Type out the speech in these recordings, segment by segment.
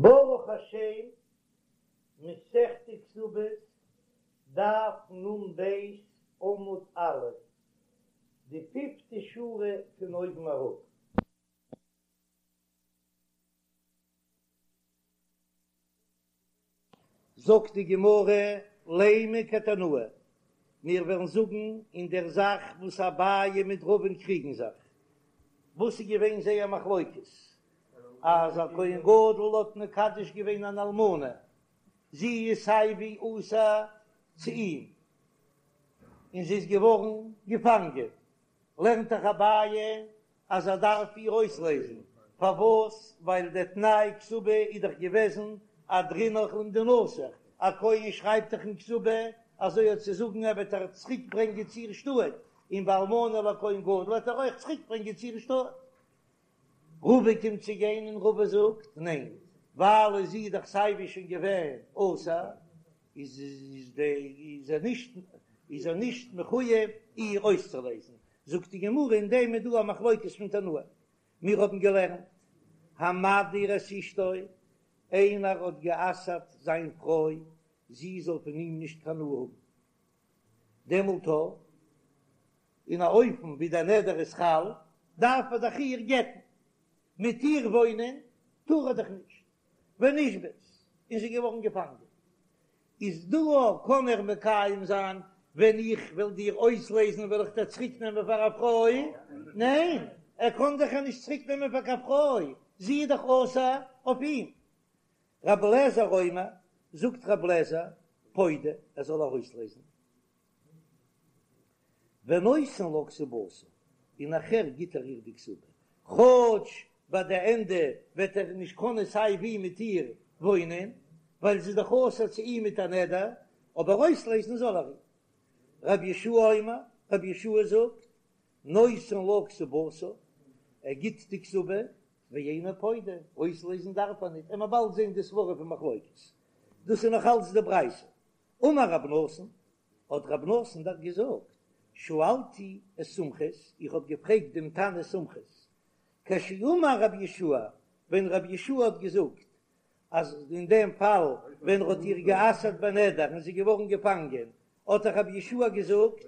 ברוך השם, מסכת כתובות, דף נ"ב, עמוד א', די פיפטע שורה פון אויבן אראפ. זאגט די גמרא, לימא כתנאי, מיר וועלן זאגן אין דער זאך וואס אביי מיט רבא'ן קריגן זיך, וואס איז געווען זייער מחלוקת, אז א כהן גדול האט מקדש געווען אן אלמנה, זי איז סיי ווי אסור צו אים, און זי איז געווארן געפאנגען, לערנט דאך אביי אז ער דארף איר אויסלעזן, פארוואס? ווייל דער תנאי כתובה איז דאך געוועזן אהדרינך למדינתיך, א כהן שרייבט דאך אין כתובה אזוי האט צו זאגן ער וועט איר צוריק ברענגען צו איר שטאט, און ביי אלמנה לכהן גדול וועט ער אויך צוריק ברענגען צו איר שטאט. רבא קומט צו גיין און רבא זאגט ניין, ווייל זי איז דאך סייווי שוין געווען אסור, איז איז ער נישט איז ער נישט מחויב איר אויסצולעזן, זאגט די גמרא אין דעם איז דא א מחלוקת פון תנאים, מיר האבן געלערנט המדיר את אשתו, איינער האט גע'אסר'ט זיין פרוי זי זאל פון אים נישט קיין הנאה האבן, דעמאלט אין א אופן ווי דער נדר איז חל, דארף ער דאך איר גט'ן, מיט איר וואוינען טאר ער דאך נישט, ונשבית, און זי איז געווארן געפאנגען, איז דא קען ער מקיים זיין ווען איך וועל דיר אויסלעזן וועל איך דיר צוריק נעמען פאר א פרוי? ניין, ער קען דאך איר נישט צוריק נעמען פאר קיין פרוי, זי איז דאך אסור אויף אים. רבי אליעזר אומר, זאגט רבי אליעזר, פודה, ער זאל איר אויסלעזן. ונותן לה כתובתה, און נאכהער גיט ער איר די כתובה, כאטש ביי די ענדע וועט ער נישט קענען סיי ווי מיט איר וואוינען, ווייל זי איז דאך אסור צו אים מיט א נדר, אבער אויסלעזן זאל ער איר. רבי יהושע אומר, רבי יהושע זאגט, נותן לה כתובתה, ער גיט די כתובה, ואינו פודה, אויסלעזן דארף ער ניט, עמער באלד זען די סברא פון מחלוקת, דאס איז נאך אלץ די ברייתא. אמר רב נתן, האט רב נתן דאך געזאגט, שאלתי את סומכוס, איך האב געפרעגט דעם תנא סומכוס, כשאמר רבי יהושע, ווען רבי יהושע האט געזאגט אז אין דעם פאל ווען ער האט איר גע'אסר'ט בנדר און זי איז געווארן געפאנגען, האט דאך רבי יהושע געזאגט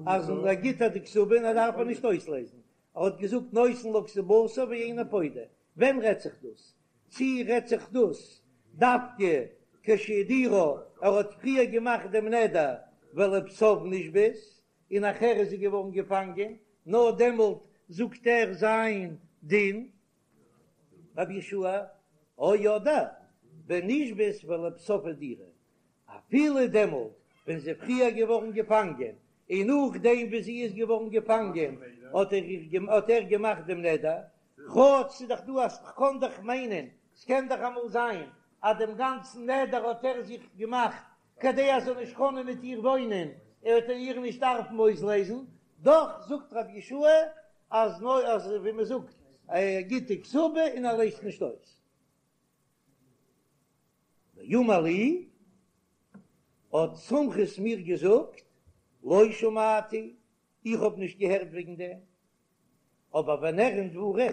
אז ער גיט איר די כתובה און ער דארף איר נישט אויסלעזן, ער האט געזאגט נותן לה כתובתה ואינו פודה, ווען רעדט זיך דאס? צי רעדט זיך דאס דווקא כשהדירה, ער האט פריער געמאכט דעם נדר ולבסוף נשבית, און נאכהער איז זי געווארן געפאנגען, נאר דעמאלט זאגט ער זיין דין, רבי יהושע, או אדער בנשבית ולבסוף הדירה, אפילו דעמאלט ווען זי איז פריער געווארן געפאנגען, און נאכדעם ווי זי איז געווארן געפאנגען האט ער געמאכט דעם נדר, כאטש ס'איז דאך דא אז כ'קען דאך מיינען, ס'קען דאך אמאל זיין אז דעם גאנצן נדר האט ער זיך געמאכט כדי ער זאל נישט קענען מיט איר וואוינען, ער וועט איר נישט דארפן אויסלעזן, דאך זאגט רבי יהושע אז נאר אז ווי מ'זאגט ער גיט די כתובה און ער לעזט נישט אויס. ואמר לי, האט סומכוס מיר געזאגט, לא שמעתי, איך האב נישט געהערט וועגן דעם, אבער ונראין דברים,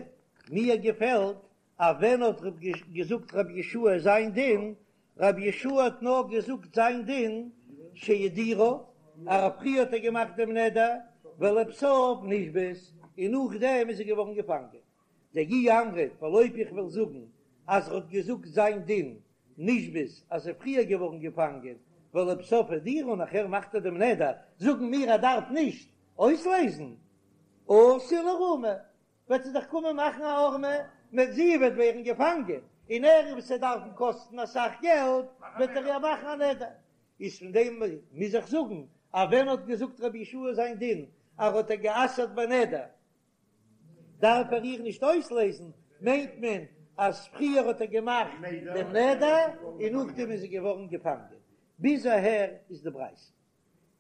מיר געפעלט אז ווען האט געזאגט רבי יהושע זיין דין, רבי יהושע האט נאר געזאגט זיין דין שהדירה, אז פריער האט ער געמאכט דעם נדר, ולבסוף נשבית, און נאכדעם איז זי געווארן געפאנגען. דאי אמרת, ווייל אויב איך וועל זאגן אז ער האט געזאגט זיין דין נשבית אז זי איז פריער געווארן געפאנגען ולבסוף הדירה און נאכהער מאכט ער דעם נדר, זאגן מיר ער דארף נישט אויסלעזן, אתי לאיערומי, וועט זי דאך קומען מאכן א הערמה, מיט זי וועט ווערן געפאנגען און ער וועט עס דארפן קאסטן אסאך געלט, וועט ער איר מאכן א נדר. איז פון דעם מוז איך זאגן אז ווען האט געזאגט רבי יהושע זיין דין אז ער האט איר גע'אסר'ט בנדר דארף ער איר נישט אויסלעזן, מיינט מען אז פריער האט ער געמאכט דעם נדר און נאכדעם איז זי געווארן געפאנגען. ביז אהער איז די ברייתא.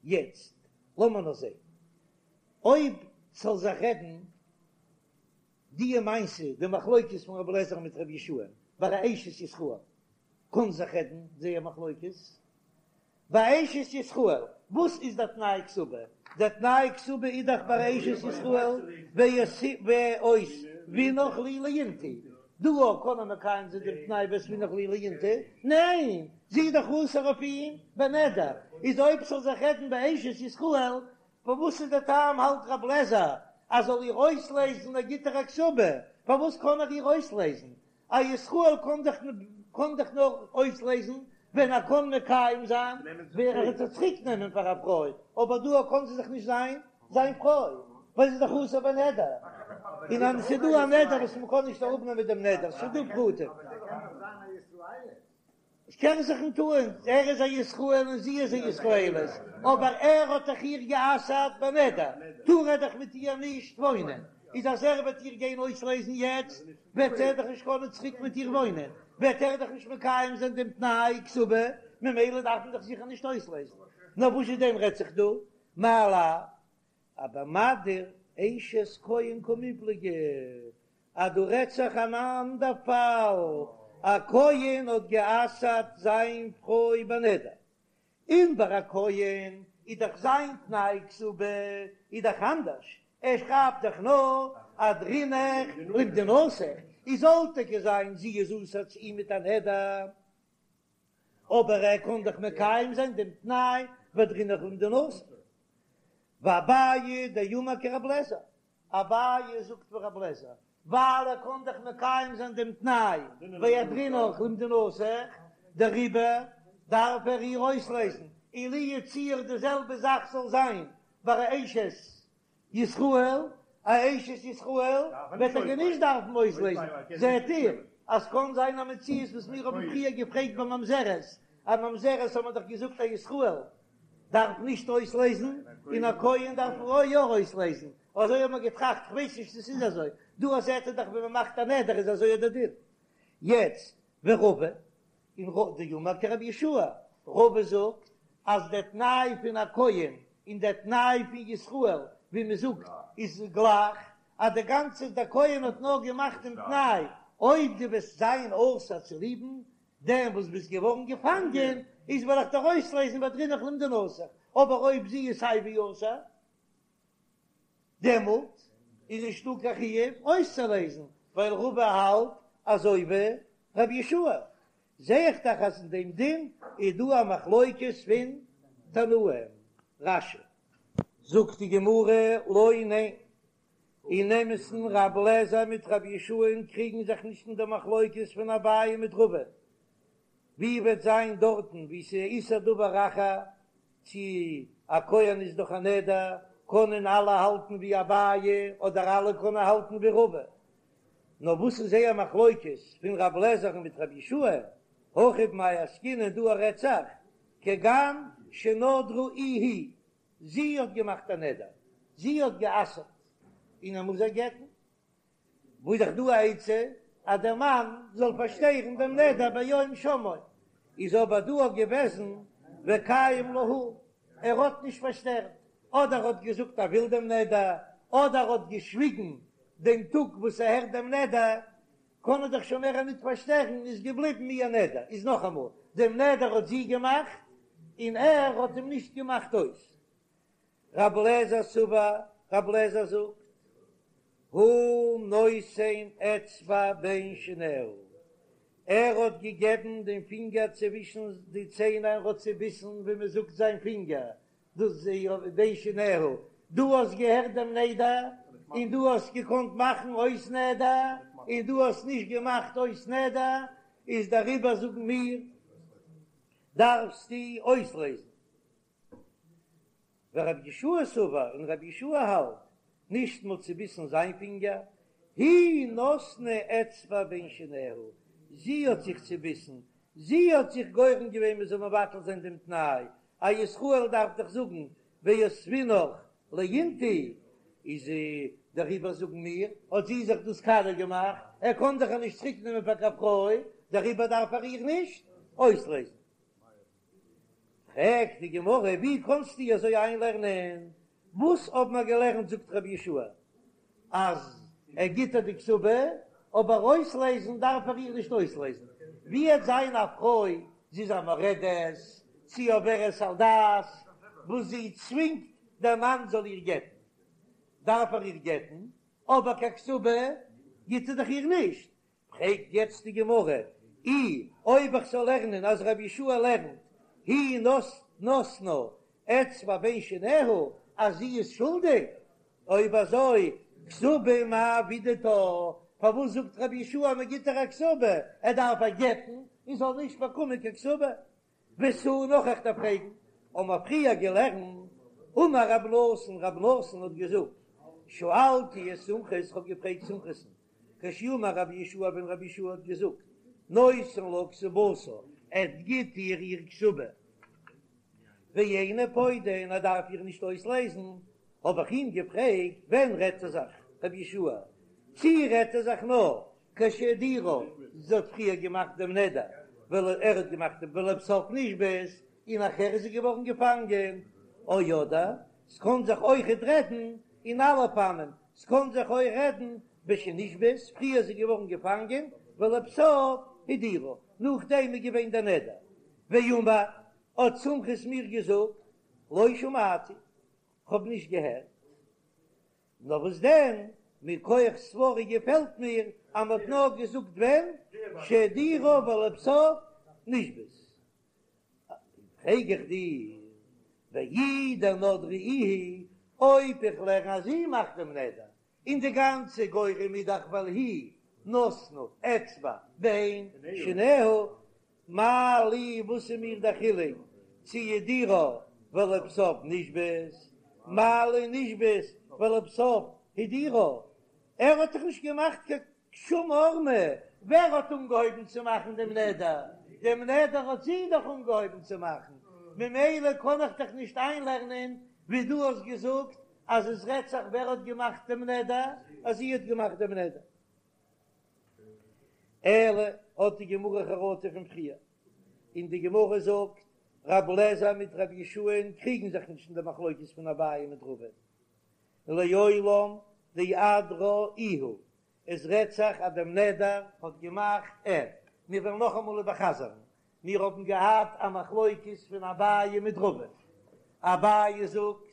יעצט לאמיר נאר זען אויב ס'זאל זיך רעדן די מעשה, די מחלוקת פון רבי אליעזר מיט רבי יהושע ביי א אשת ישראל, קען זיך רעדן זייער מחלוקת, ביי אשת ישראל, וואס איז דער תנאי כתובה? דער תנאי כתובה איז דאך ביי אשת ישראל ואותבינך לי לאינתו. דא קען ער מקיים זיין דעם תנאי ואותבינך לי לאינתו? ניין, זי איז דאך אסור אויף אים בנדר, איז אויב ס'זאל זיך רעדן באשת ישראל, פארוואס איז דער טעם האלט רב לעזער אז זאל איר אויסלעזן ער גיט איר א כתובה, פארוואס קען ער איר אויסלעזן? א ישראל קען דאך קען דאך נאר אויסלעזן ווען ער קען מקיים זיין ווען ער וועט זי צוריק נעמען פאר א פרוי, אבער דא קען זי דאך נישט זיין זיין פרוי ווייל זי איז דאך אסור בנדר, און אז ס'איז דא א נדר וואס מ'קען נישט אראפנעמען דעם נדר, ס'איז דא פרטים. עס קען זיך נישט טוען, ער איז א ישראל און זי איז א ישראלית, אבער ער האט דאך איר גע'אסר'ט בנדר, טאר ער דאך מיט איר נישט וואוינען, איז אז ער וועט איר גיין אויסלעזן יעצט, וועט ער דאך נישט קענען צוריק מיט איר וואוינען, וועט ער דאך נישט מקיים זיין דעם תנאי כתובה, ממילא דארף מען דאך זיכער נישט אויסלעזן. נאר וואס איז דען רעדט זיך דא? מאי לאו אבמדיר אשת כהן קמיפלגי, אז דא רעדט זיך אן אנדער פאל, א כהן האט גע'אסר'ט זיין פרוי בנדר, און ביי א כהן איז דאך זיין תנאי כתובה איז דאך אנדערש, ער שרייבט דאך נאר אהדרינך למדינתך, איז זאל טאקע זיין זי איז אסור צו אים מיט א נדר, אבער ער קען דאך מקיים זיין דעם תנאי ואהדרינך למדינתך. ואביי דאמר כרב לעזער, אביי זאגט ווי רב לעזער, ווייל ער קען דאך מקיים זיין דעם תנאי ואהדרינך למדינתך, דעריבער דארף ער איר אויסלעזן, און לו יצוייר די זעלבע זאך זאל זיין ביי א אשת ישראל, א אשת ישראל וועט ער נישט דארפן אויסלעזן, זעט איר אז קאן זיין א מציאות וואס מיר האבן פריער געפרעגט ביי ממזרת, א ממזרת האט מען דאך געזאגט א ישראל דארף נישט אויסלעזן און א כהן דארף יא אויסלעזן, אזוי האט מען געטראכט, כ'ווייס נישט צו ס'איז אזוי, דא זעט איר דאך ווען מ'מאכט א נדר איז אזוי דער דין. יעצט ורבא און רבא דאמר כרבי יהושע, רבא זאגט אז דער תנאי פון א כהן און דער תנאי פון ישראל ווי מען זאגט איז גלייך, אז די גאנצע דער כהן האט נאר געמאכט דעם תנאי אויב דו וועסט זיין אסור צוליבן דעם וואס ביסט געווארן געפאנגען איז וועל איך דיר אויסלעזן ואהדרינך למדינתך, אבער אויב זי איז סיי ווי אסור דעמאלט איז נישטא קיין חיוב אויסצולעזן, ווייל רבא האלט אזוי ווי רבי יהושע, זע איך דאך אז אין דעם דין איז דא א מחלוקת פון תנאים. רש"י. זאגט די גמרא, לא, ניין, אין אמת'ן רב לעזער מיט רבי יהושע'ן קריגן זיך נישט אין די מחלוקת פון אביי מיט רבא, ווי וועט זיין דארטן ווי ס'איז איסור דבר אחר, צו א כהן איז דאך א נדר, קענען אלע האלטן ווי אביי אדער אלע קענען האלטן ווי רבא, נאר וואס איז זייער מחלוקת פון רב לעזער'ן מיט רבי יהושע, הכא במאי עסקינן דא רעדט זיך כגון שנדרה איהי, זי האט געמאכט א נדר, זי האט גע'אסר'ט און ער מוז איר גט'ן, וואו איז דאך דא א עצה אז דער מאן זאל פארשטערן דעם נדר ביום שמעו, איז אבער דא געוועזן וקיים לה הוא, ער האט נישט פארשטערט, אדער האט געזאגט ער וויל דעם נדר, אדער האט געשוויגן דעם טאג וואס ער הערט דעם נדר, קען ער דאך שוין מער ניט פארשטערן, איז געבליבן איר נדר, איז נאכאמאל, דעם נדר האט זי געמאכט און ער האט אים נישט געמאכט אויס. רב לעזער סבר, רב לעזער זאגט, הוא נותן אצבע בין שיניה, ער האט געגעבן דעם פינגער צווישן די ציין ער האט צעביסן ווי מען זאגט זיין פינגער, דאס איז בין שיניה, דו האסט געהערט דעם נדר און דו האסט געקאנט מאכן אויס נדר און דו האסט נישט געמאכט אויס נדר, איז דעריבער זאגן מיר דארפסטו אויסלעזן. ורבי יהושע סבר, און רבי יהושע האלט, נישט מ'האט צוביסן זיין פינגער, היא נתנה אצבע בין שיניה, זי האט זיך צוביסן, זי האט זיך גורם געווען מ'זאל מבטל זיין דעם תנאי, א ישראל דארף דאך זאגן ואותבינך לאינתו, איז דעריבער זאגן מיר, האט זי זיך דאס קאליע געמאכט, ער קען דאך איר נישט צוריק נעמען פאר קיין פרוי, דעריבער דארף ער איר נישט אויסלעזן. פרעגט די גמרא, ווי קאנסטו אזוי איינלערנען? וואס האבן מיר געלערנט זאגט רבי יהושע אז ער גיט איר די כתובה, אבער אויסלעזן דארף ער איר נישט אויסלעזן, ווי וועט זיין א פרוי זי איז א מורדת, צי עוברת על דת, וואס זי צווינגט דער מאן זאל איר גט'ן, דארף ער איר גט'ן, אבער קיין כתובה גיט ער דאך איר נישט, פרעגט יעצט די גמרא, אי אויב איך זאל לערנען אז רבי יהושע לערנט היא נתנה אצבע בין שיניה אז זי איז שולדיג, אויב אזוי כתובה מאי עבידתה, פארוואס זאגט רבי יהושע אז מען גיט איר א כתובה, ער דארף איר גט'ן און זאל נישט באקומען קיין כתובה? ותו נאך איך דארף פרעגן, האבן מיר פריער געלערנט, אמר רב נתן, רב נתן האט געזאגט, שאלתי את סומכוס, כ'האב געפרעגט סומכוס'ן, כשאמר רבי יהושע ווען רבי יהושע האט געזאגט, נותן לה כתובתה, ער גיט איר איר כתובה, ואינו פודה און ער דארף איר נישט אויסלייזן, האב איך אים געפרעגט, ווען רעדט ער זיך רבי יהושע, צי רעדט ער זיך נאר כשהדירה, זי האט פריער געמאכט דעם נדר, ול ער האט געמאכט דעם ולבסוף נשבית, און נאכער איז זי געווארן געפאנגען, או אדער, ס'קאן זיך אויכעט רעדן אין אלע אופנים, ס'קאן זיך אויך רעדן בשנשבית, פריער איז זי געווארן געפאנגען, ולבסוף הדירה, נאכדעם איז געווען דער נדר. ואמר, האט סומכוס מיר געזאגט, לא שמעתי, כ'האב נישט געהערט. נאר וואס דען, מכח סברא געפעלט מיר אז מ'האט נאר געזאגט ווען שהדירה ולבסוף נשבית. פרעג איך דיר, ואי דנדרה איהי, אויב איך לערן אז זי מאכט דעם נדר, און די גאנצע גורם איז דאך ווייל היא נתנה אצבע בין שיניה, מה לי וואס איז מיר דער חילוק צו הדירה ולבסוף נשבית, מה לי נשבית ולבסוף הדירה, ער האט דאך נישט געמאכט קיין שום הערמה, ווער האט אנגעהויבן צו מאכן דעם נדר? דעם נדר האט זי דאך אנגעהויבן צו מאכן, ממילא קען איך דאך נישט איינלערנען ווי דו האסט געזאגט אז עס רעדט זיך ווער האט געמאכט דעם נדר, אז זי האט געמאכט דעם נדר. אלא האט די גמרא חרטה פון פריער, און די גמרא זאגט רב לעזער מיט רב יהושע'ן קריגן זיך נישט אין די מחלוקת פון אביי מיט רבא, לעולם דאדרה איהו, עס רעדט זיך אז דעם נדר האט געמאכט ער. מיר וועלן נאכאמאל איבערחזר'ן, מיר האבן געהאט א מחלוקת פון אביי מיט רבא, אביי זאגט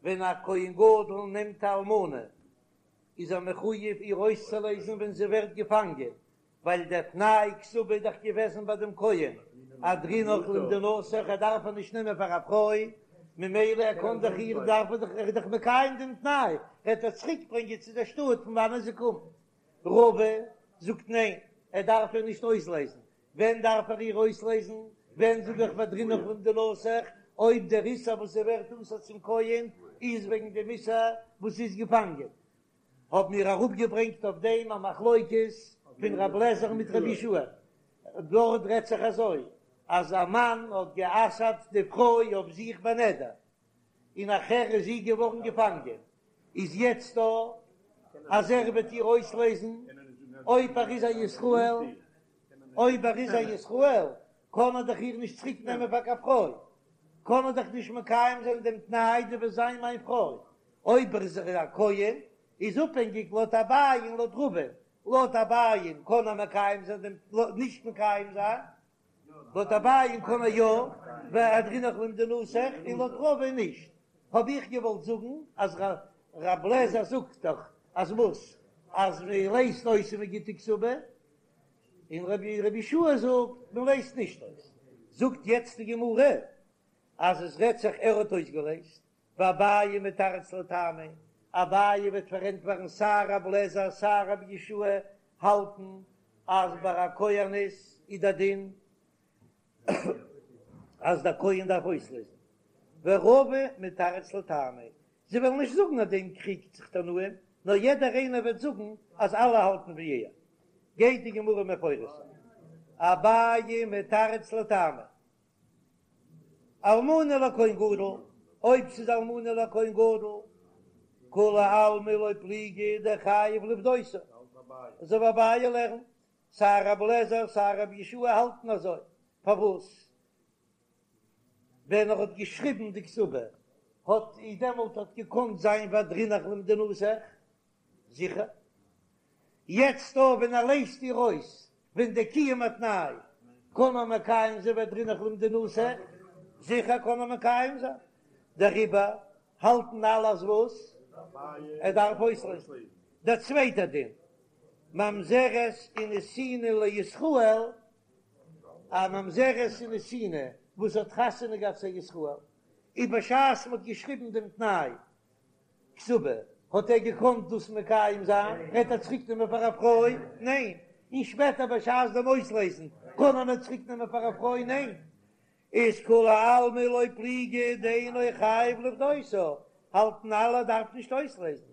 ווען א כהן גדול נעמט א אלמנה איז ער מחויב איר אויסצולייזן ווען זי ווערט געפאנגען, ווייל דער תנאי כתובה איז דאך געוועזן ביי דעם כהן, אהדרינך למדינתך, ער דארף איר נישט נעמען פאר א פרוי, ממילא ער קען דאך איר, דארף ער דאך, ער איז דאך מקיים דעם תנאי, ער וועט איר צוריק ברענגען צו דער שטאט פון וואנען זי קומט. רבא זאגט ניין, ער דארף איר נישט אויסלייזן, ווען דארף ער איר אויסלייזן? ווען זאג איך והדרינך למדינתך, אויב דער איסור וואס זי ווערט אסור צום כהן איז וועגן דעם איסור וואס זי איז געפאנגען? האבן מיר אראפגעברענגט אויף דעם א מחלוקת פון רב לעזער מיט רבי יהושע, דארט רעדט זיך אזוי אז א מאן האט גע'אסר'ט די פרוי אויף זיך בנדר, און נאכער איז זי געווארן געפאנגען, איז יעצט דא אז ער וועט איר אויסלייזן אויב ער איז א ישראל, אויב ער איז א ישראל קען ער דאך איר נישט צוריק נעמען פאר קיין פרוי, קען ער דאך נישט מקיים זיין דעם תנאי דו וועסט זיין מיין פרוי, אויב ער איז א כהן איז אפהענגיק לויט אביי און לויט רבא, לויט אביי קען ער מקיים זיין דעם נישט מקיים זיין, לויט אביי קען ער יא, והדרינך למדינתך, און לויט רבא נישט. האב איך געוואלט זאגן אז רב לעזער זאגט דאך אז וואס? אז מען לייזט אויס און מען גיט די כתובה, און רבי יהושע זאגט מען לייזט נישט אויס. זאגט יעצט די גמרא אז עס רעדט זיך ער האט אויסגעלייזט, ואביי מתרץ לטעמיה, אביי וועט פארענטפערן סיי רב לעזער סיי רבי יהושע האלטן אז ביי א כהנת איז דער דין אז דער כהן דארף אויסלייזן, ורבא מתרץ לטעמיה, זיי וועלן נישט זאגן אז דעם קריגט זיך תנאים, נאר יעדער איינער וועט זאגן אז אלע האלטן ווי ער. גייט די גמרא מפרש זיין, אביי מתרץ לטעמיה, אלמנה לכהן גדול, אויב ס'איז אלמנה לכהן גדול, כולי עלמא לא פליגי דחייב לפדותה, אזוי ווי אביי לערנט, סיי רב לעזער סיי רב יהושע האלטן אזוי, פארוואס ווען ער האט געשריבן די כתובה האט איז דעמאלט האט געקאנט זיין והדרינך למדינתך? זיכער. יעצט דא ווען ער לייזט איר אויס ווען די קיום התנאי קען ער מקיים זיין והדרינך למדינתך, זיכער קען ער מקיים זיין, דעריבער האלטן אלע אז וואס? ער דארף אויסלייזן. דער צווייטער דין. ממזרת ונתינה לישראל, א ממזרת ונתינה וואס האט חתונה געהאט צו א ישראל, און בשעת מ'האט געשריבן דעם תנאי כתובה, האט ער געקאנט דאס מקיים זיין? וועט ער צוריק נעמען פאר א פרוי? ניין. און שפעטער בשעת דעם אויסלעזן, קען ער איר צוריק נעמען פאר א פרוי? ניין. איז כולי עלמא לא פליגי דאינו חייב לפדותה, האלטן אלע ער דארף נישט אויסלעזן,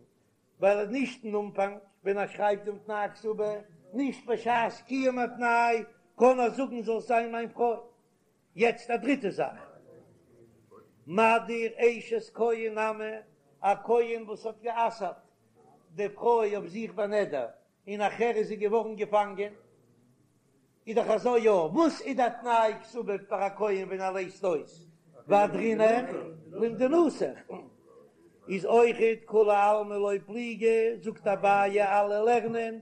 ווייל נישט אין אנפאנג ווען ער שרייבט דעם תנאי כתובה, נישט בשעת קיום התנאי, קען ער זאגן זאלסט זיין מיין פרוי. יעצט א דריטע זאך, מדיר אשת כהן נמי, א כהן וואס האט גע'אסר'ט די פרוי אויף זיך בנדר, און נאכער איז זי געווארן געפאנגען, איז דאך אזוי יא, וואס איז די תנאי כתובה פאר א כהן ווען ער לייזט אויס ואהדרינך למדינתך, איז אויכעט כולי עלמא לא פליגי, זאגט אביי אלע לערנען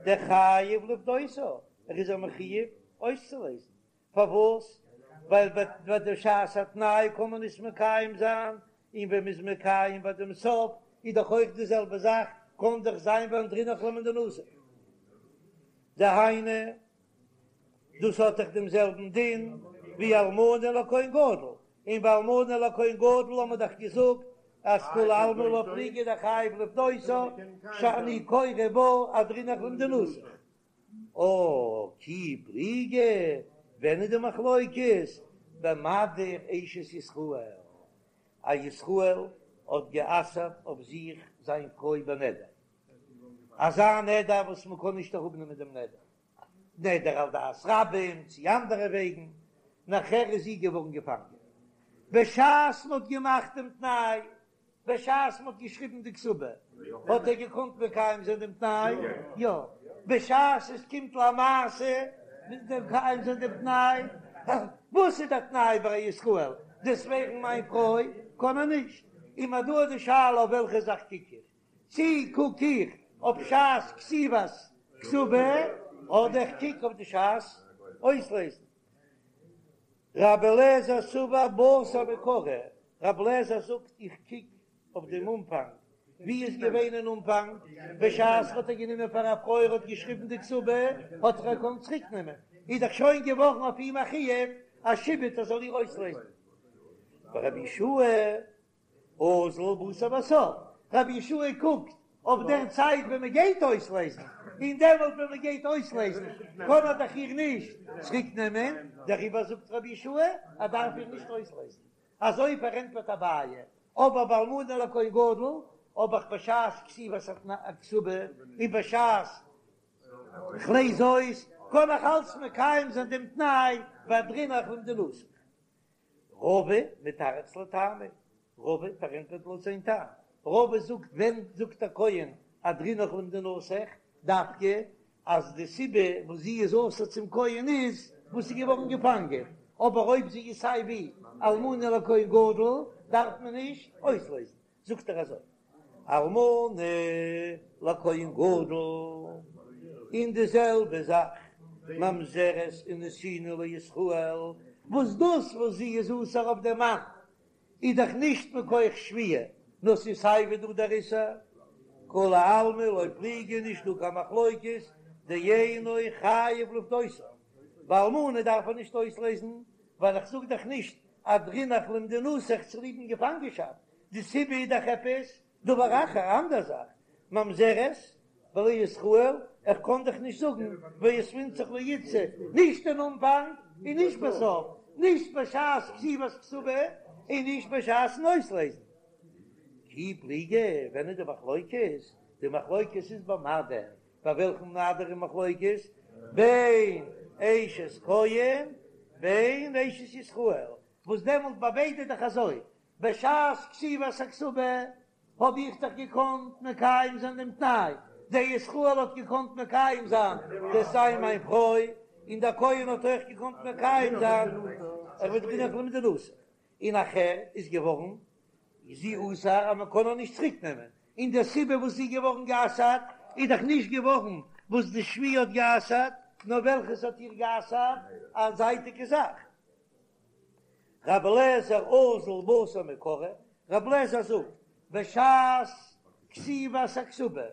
דחייב לפדותה, ער איז א מחויב אויסצולייזן, פארוואס? ווייל ביי די שעת התנאי קען מען נישט מקיים זיין, און ווען מ'איז מקיים ביי דעם סוף איז דאך אויך די זעלבע זאך, קען דאך זיין ואהדרינך למדינתך. דהיינו, דאס האט דאך דעם זעלבן דין ווי אלמנה לכהן גדול, און ביי אלמנה לכהן גדול האט מען דאך געזאגט אז כולי עלמא לא פליגי דחייב לפדותה, שאני קורא בה אהדרינך למדינתך. אה, כי פליגי, ווען איז די מחלוקת? במדיר אשת ישראל, א ישראל האט גע'אסר'ט אויף זיך זיין פרוי בנדר, אזא נדר וואס מען קען נישט אראפנעמען דעם נדר, נדר על דעת רבים צי אנדערע וועגן, נאכער איז זי געווארן געפאנגען בשעת מען האט געמאכט דעם תנאי בשעת מ'האט געשריבן די כתובה האט ער געקאנט מקיים זיין דעם תנאי? יא. בשעת עס קומט למעשה מקיים זיין דעם תנאי, וואס איז דער תנאי ביי א ישראל? דו'סט ווערן מיין פרוי קען ער נישט. און מיר דא איז די שאלה אויף וועלכע זאך קוק איך? צי קוק איך אויף שעת כתיבת כתובה אדער איך קוק אויף די שעת אויסלעזן? רבי אליעזר סבר בתר מעיקרא, רבי אליעזר זאגט איך קוק אויף דעם אנפאנג, ווי איז געווען אין אנפאנג, בשעת האט ער גענומען פאר א פרוי ער האט געשריבן די כתובה, האט ער געקאנט צוריק נעמען, איז דאך שוין געווארן אויף אים א חיוב א שעבוד ער זאל איר אויסלעזן. ורבי יהושע אזיל בתר בסוף, רבי יהושע קוקט אויף דער צייט ווען מען גייט אויסלעזן, און דעמאלט ווען מען גייט אויסלעזן קען ער דאך איר נישט צוריק נעמען, דעריבער זאגט רבי יהושע ער דארף איר נישט אויסלעזן. אזוי פארענטפערט אביי, אבער ביי אלמנה לכהן גדול האב איך בשעת כתיבת הכתובה און בשעת כ'לעז אויס קען איך אלץ מקיים זיין דעם תנאי ואהדרינך למדינתך. רבא מתרץ לטעמיה, רבא פארענטפערט לויט זיין טעם, רבא זאגט ווען זאגט א כהן אהדרינך למדינתך, דווקא אז די סיבה וואס זי איז אסור צום כהן איז וואס איז געווארן געפאנגען, אבער אויב זי איז סיי ווי אלמנה לכהן גדול דארף מען נישט אויסלעזן. זאגט ער אזוי, אלמנה לכהן גדול, און די זעלבע זאך ממזרת ונתינה לישראל, וואס דאס וואס זי איז אסור אויף דעם מאן איז דאך נישט מכח שבויה, נאר ס'איז סיי ווי דא דער איסור, כולי עלמא לא פליגי נישט דא קיין מחלוקת, דאינו חייב לפדותה, ביי אלמנה דארף ער נישט אויסלעזן, ווייל איך זאג דאך נישט אהדרינך למדינתך צוליבן געפאנגענשאפט, די סיבה איז דאך עפעס דבר אחר, א אנדער זאך, ממזרת ולישראל, איך קען דאך נישט זאגן ואותבינך לאיתתא, נישט אין אנפאנג און נישט בסוף, נישט בשעת כתיבת כתובה און נישט בשעת'ן אויסלעזן. כי פליגי, ווען איז די מחלוקת? די מחלוקת איז במדיר, ביי וועלכן מדיר איז מחלוקת? בין אשת כהן בין אשת ישראל, וואס דעמאלט ביי ביידע איז דאך אזוי, בשעת כתיבת הכתובה האב איך דאך געקאנט מקיים זיין דעם תנאי, דער ישראל האט געקאנט מקיים זיין דו'סט זיין מיין פרוי, און דער כהן האט אויך געקאנט מקיים זיין ואהדרינך למדינתך, און נאכער איז געווארן זי אסור אז מען קען איר נישט צוריק נעמען, און די סיבה וואס זי איז געווארן גע'אסר'ט איז דאך נישט געווארן וואס די שבויה האט גע'אסר'ט, נאר וועלכעס האט איר גע'אסר'ט, א זייטיגע זאך. רבי אליעזר אזיל בתר מעיקרא, רבי אליעזר זאגט, בשעת כתיבת הכתובה.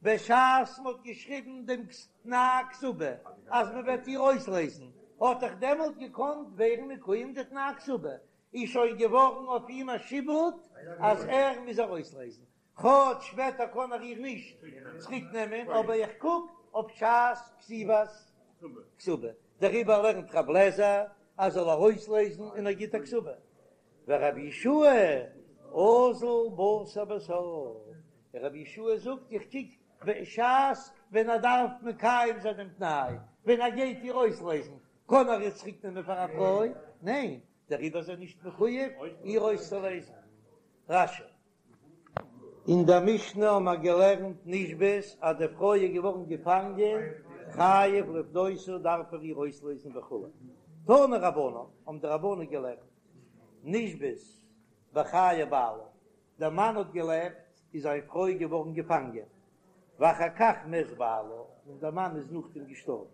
בשעת מ'האט געשריבן דעם תנאי כתובה אז מ'וועט איר אויסלעזן, האט דאך דעמאלט געקאנט ווערן מקוים די תנאי כתובה, איז שוין געווארן אויף אים א שעבוד אז ער מוז איר אויסלעזן, כאטש שפעטער קען ער איר נישט צוריק נעמען, אבער איך קוק אויף שעת כתיבת כתובה, דעריבער לערנט רב לעזער אז זאל איר אויסלעזן און ער גיט א כתובה, ורבי יהושע אזיל בתר בסוף, רבי יהושע זאגט איך קוק בשעת ווען ער דארף מקיים זיין דעם תנאי, ווען ער גייט איר אויסלעזן, קען ער איר צוריק נעמען פאר א פרוי? ניין, דעריבער איז ער נישט מחויב איר אויסצולעזן. רש"י. אין דער משנה האבן מיר געלערנט נשבית אז די פרוי איז געווארן געפאנגען, חייב לפדותה דארף ער איר אויסלעזן וכו'. תנו רבנן, האבן די רבנן געלערנט, נשבית בחיי בעלה, דער מאן האט געלעבט איז זיין פרוי געווארן געפאנגען, ואחר כך מת בעלה, און דער מאן איז נאכדעם געשטארבן,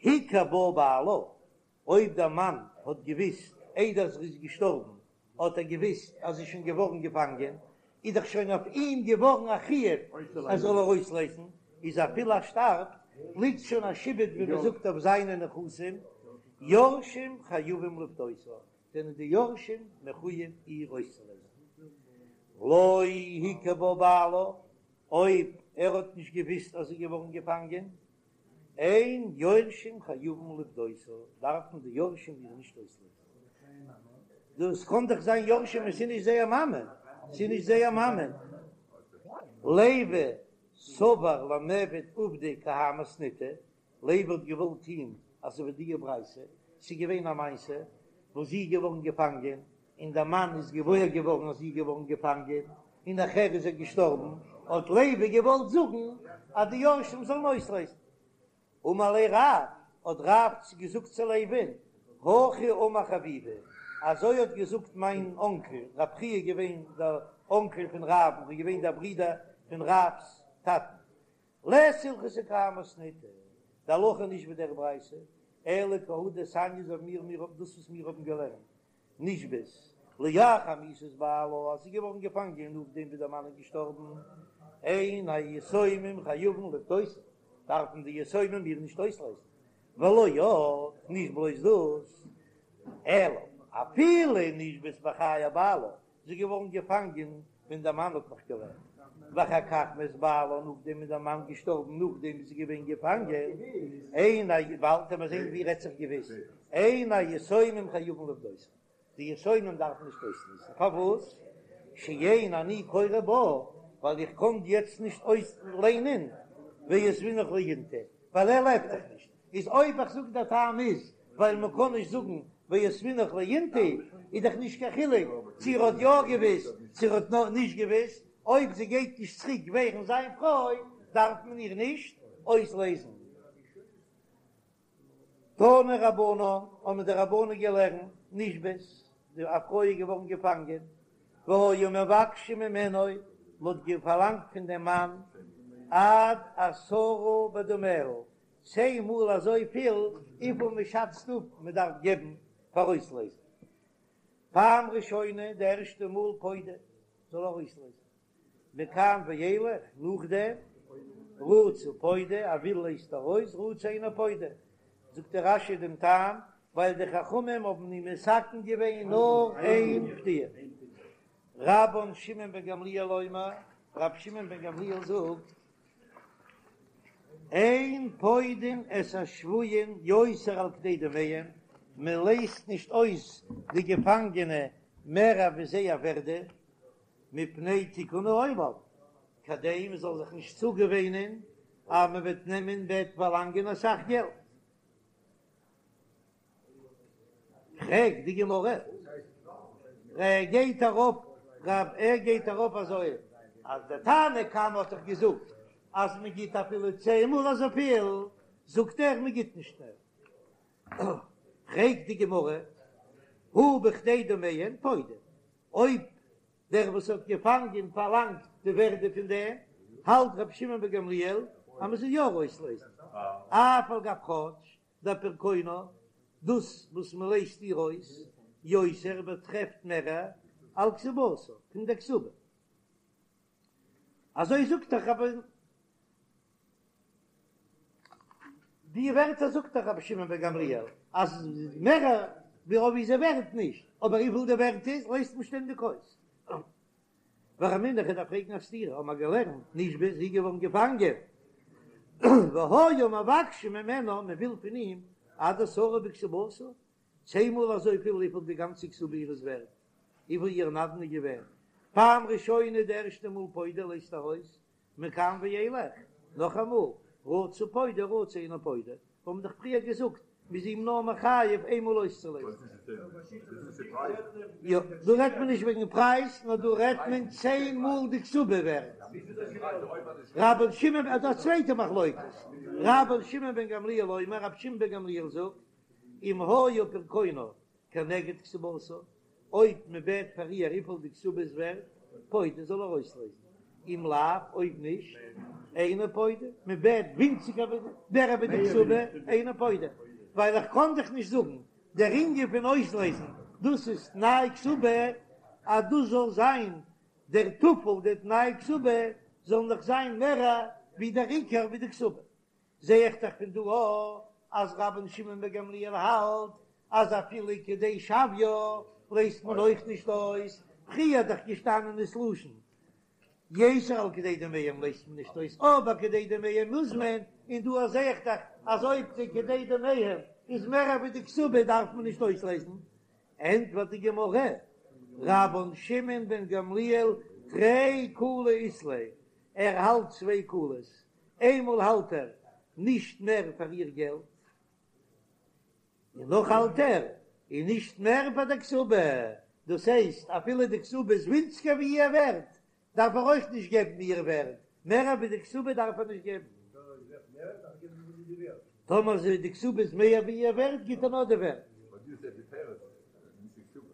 הכיר בה בעלה, אויב דער מאן האט געוויסט איידער זי איז געשטארבן, האט ער געוויסט אז זי איז שוין געווארן געפאנגען, איז דאך שוין אויף אים געווארן א חיוב ער זאל איר אויסלייזן, איז אפילו ער שטארבט, ליגט שוין א שעבוד ווי מען זאגט אויף זיינע נכסים, יורשים חייבים לפדותה, זענען די יורשים מחויב איר אויסצולייזן. לא הכיר בה בעלה, אויב ער האט נישט געוויסט אז זי איז געווארן געפאנגען, אין יורשים חייבים לפדותה, דארפן די יורשים איר נישט אויסלייזן. דאס קען דאך זיין יורשים עס איז נישט זייער מאמע, ס'איז נישט זייער מאמע. לוי סבר למיעבד עובדא כי האי מתניתא, לוי האט געוואלט טוהן אזוי ווי די ברייתא, ס'איז געווען א מעשה וואס זי איז געווארן געפאנגען, און דער מאן איז געוואויר געווארן אז זי איז געווארן געפאנגען, און נאכער איז ער געשטארבן, האט לוי געוואלט זאגן אז די יורשים זאלן אויסלייזן. אמר ליה רב, האט רב געזאגט צו לוי'ן, הכי אמר חביבי, אזוי האט געזאגט מיין אנקל, רב חייא איז געווען דער אנקל פון רב'ן, איז געווען דער ברודער פון רב'ס טאטן, לית הלכתא כי האי מתניתא, די הלכה איז נישט ווי דער ברייתא, אלא כי הא דתניא אזוי ווי מיר מיר דאס וואס מיר האבן געלערנט, נשבית לאחר מיתת בעלה אז זי איז געווארן געפאנגען נאכדעם ווי דער מאן איז געשטארבן, אין היתומים חייבים לפדותה, דארפן די יתומים איר נישט אויסלייזן, ולא עוד, נישט בלויז דאס, אלא אפילו נשבית בחיי בעלה, זי איז געווארן געפאנגען ווען דער מאן האט נאך געלעבט, ואחר כך מת בעלה, נאכדעם איז דער מאן געשטארבן נאכדעם איז זי געווען געפאנגען, אין א, באלד וועט מען זען ווי רעדט זיך געוויס, אין היתומים חייבים לפדותה, די יתומים דארפן נישט אויסלייזן, פארוואס? שאין אני קורא בה, ווייל איך קען יעצט נישט אויסליינען ואותבינך לאינתו, ווייל ער לעבט דאך נישט, איז אויב איך זאג דער טעם איז ווייל מען קען נישט זאגן ואותבינך לאינתו, איז דאך נישט קיין חילוק צו ער האט יא געוויסט צו ער האט נישט געוויסט, אויב זי גייט נישט צוריק ווערן זיין פרוי דארף מען איר נישט אויסלייזן. תנו רבנן, האבן די רבנן געלערנט, נשבית, די א פרוי איז געווארן געפאנגען, והיו מבקשים ממנו, מען האט פארלאנגט פון דעם מאן עד עשרה בדמיה, צען מאל אזויפיל וויפיל מען שאצט אפ מען דארף געבן פאר אויסלייזן. פעם ראשונה, די ערשטע מאל פודה, זאל ער אויסלייזן. מכאן ואילך, נאכדעם, רצה פודה, ער וויל לייזט ער אויס, רצה אינו פודה. זאגט דער רש"י דעם טעם, ווייל די חכמים האבן אים מתקן געווען נאר איין פדיה. רבן שמעון בן גמליאל אומר, רבי שמעון בן גמליאל זאגט, אין פודין את השבויים יותר על כדי דמיהם, מען לייזט נישט אויס די געפאנגענע מער ווי זייער ווערדע, מפני תיקון העולם, כדי מען זאל זיך נישט צוגעוואינען אז מען וועט נעמען וועט פארלאנגען אסאך געלט. פרעגט די גמרא, ער גייט ארויף רב ער גייט ארויף אזוי אז דער תנא קמא האט דאך געזאגט אז מען גיט אפילו צען מאל אזויפיל, זאגט ער מען גיט נישט מער. פרעגט די גמרא, הא בכדי דמיהן פודה, אויב דער וואס האט געפאנגען פארלאנגט די ווערדע פון דעם, האלט רבי שמעון בן גמליאל אז מען זאל יא אויסלייזן, אף על גב כאטש דפרקונה, דאס וואס מען לייזט איר אויס, יותר באטרעפט מער על כתובתה פון דער כתובה. אזוי זאגט דאך רבי. די ווערטער זאגט דאך רבי שמעון בן גמליאל אז מער ווי אויב איז ער ווערט נישט, אבער וויפיל די ווערט איז לייזט מען שטענדיג אויס. ורמינהו איך דארף פרעגן א סתירה, האבן מיר געלערנט נשבית זי איז געווארן געפאנגען, והיו מבקשים ממנה, מען וויל פון אים עד עשרה בכתובתה, צען מאל אזויפיל וויפיל די גאנצע כתובה איר איז ווערט, וויפיל איר נדן איז געווען, פעם ראשונה די ערשטע מאל פודה לייזט ער אויס, מכאן ואילך, נאכאמאל, רצה פודה רצה אינו פודה, מיר האבן דאך פריער געזאגט מ'איז אים נאר מחייב איינמאל אויסצולייזן. יא, דא רעדט מען נישט וועגן פרייז, נאר דא רעדט מען צען מאל די כתובה ווערט. רבן שמעון, אדער א צווייטע מחלוקת, רבן שמעון בן גמליאל אומר, רבי שמעון בן גמליאל זאגט, אם היה פרקונה כנגד כתובתה, אויב מען בעט פאר איר וויפיל די כתובה איז ווערט, פודה זאל ער אויסלייזן, אם לאו, אויב נישט, אינו פודה, מען בעט ווינציגער ווי מער ווי די כתובה, אינו פודה, ווייל איך קען דאך נישט זאגן דער ענין פון אויסלייזן, דאס איז תנאי כתובה, אז דאס זאל זיין דער טפל, דער תנאי כתובה זאל נאך זיין מער ווי דער עיקר ווי די כתובה. זע איך דאך פון דא אויך אז רבן שמעון בן גמליאל האלט אז אפילו כדי שוויה לייזט מען אויך נישט אויס, פריער איז דאך געשטאנען דאס לשון יתר על כדי דמיהם לייזט מען נישט אויס, אבער כדי דמיהם מוז מען, און דא זע איך דאך אז אויב די כדי דמיהם איז מער ווי די כתובה דארף מען נישט אויסלייזן. ענטפערט די גמרא, רבן שמעון בן גמליאל תרי קולי אית ליה, ער האלט צוויי קולות, איינמאל האלט ער נישט מער פאר איר געלט, און נאך האלט ער און נישט מער פאר די כתובה, דאס הייסט אפילו די כתובה איז ווינציגער ווי איר ווערט, דארף ער אויך נישט געבן איר ווערט, מער ווי די כתובה דארף ער נישט געבן. טאמער די כתובה איז מער ווי איר ווערט גיט ער נאר די ווערט.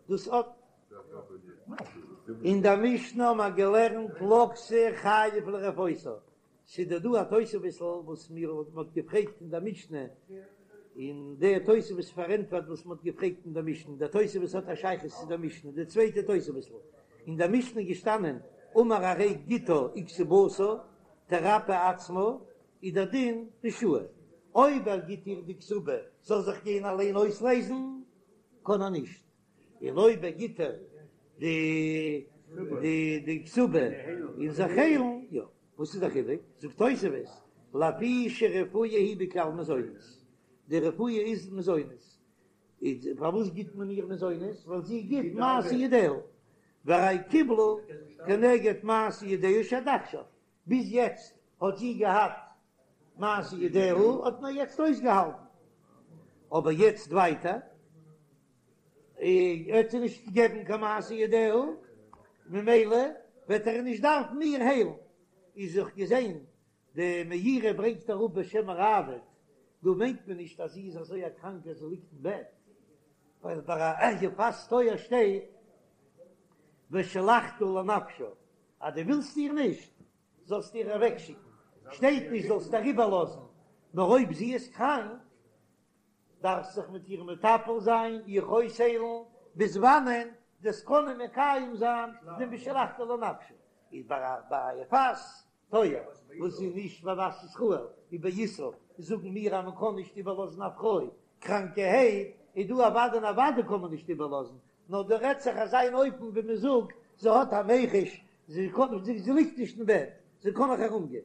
דאס האט. אין דער משנה האבן מיר געלערנט לקתה חייב לרפאותה, ס'איז דא דא א תוספות'ל וואס מיר האט מ'האט געפרעגט אין דער משנה, און דער תוספות פארענטפערט וואס מ'האט געפרעגט אין דער משנה, דער תוספות האט א שייכות צו דער משנה, די צווייטע תוספות'ל, אין דער משנה איז געשטאנען אמר הרי גיטה וכתובתה תרפא עצמה, איז דער דין רשאי, אויב ער גיט איר די כתובה זאל זיך גיין אליין אויסלייזן, קען ער נישט. און אויב ער גיט איר די די די כתובה און זיך היילן, יא, וואס איז די חילוק? זאגט תוספות, לפי שרפואה היא בכלל מזונות, די רפואה איז מזונות, איז פארוואס גיט מען איר מזונות? ווייל זי גיט מעשה ידיה, והרי קיבלה כנגד מעשה ידיה שעד עכשיו, ביז יעצט האט זי געהאט מעשה ידיה האט מען יעצט אויסגעהאלטן, אבער יעצט ווייטער וועט זי נישט געבן קיין מעשה ידיה, ממילא וועט ער נישט דארפן איר היילן. איז זיך געזען די מאירי ברענגט אראפ בשם הראב"ד, דא מיינט מען נישט אז זי איז אזוי א קראנקע אז זי ליגט אין בעט, ווייל ביי א יפת תואר שטייט ושלחתה לנפשה, אז דו ווילסט איר נישט, זאלסט איר אוועקשיקן, שטייט נישט זאלסט איר איבערלאזן, נאר אויב זי איז קראנק, דארפסט זיך מיט איר מטפל זיין, איר אויסהיילן, ביז וואנען דו'סט קענען מקיים זיין דעם ושלחתה לנפשה, איז ביי א יפת תואר וואס איז נישט בבת ישראל ווי באיסור, זאגן מיר אז מען קען נישט איבערלאזן א פרוי קראנקערהייט, איז דא אוודאי און אוודאי קען מען נישט איבערלאזן, נאר דא רעדט זיך אזא אן אופן ווי מען זאגט זי האט א מיחוש, זי קען זי ליגט נישט אין בעט, זי קען נאך ארום גיין.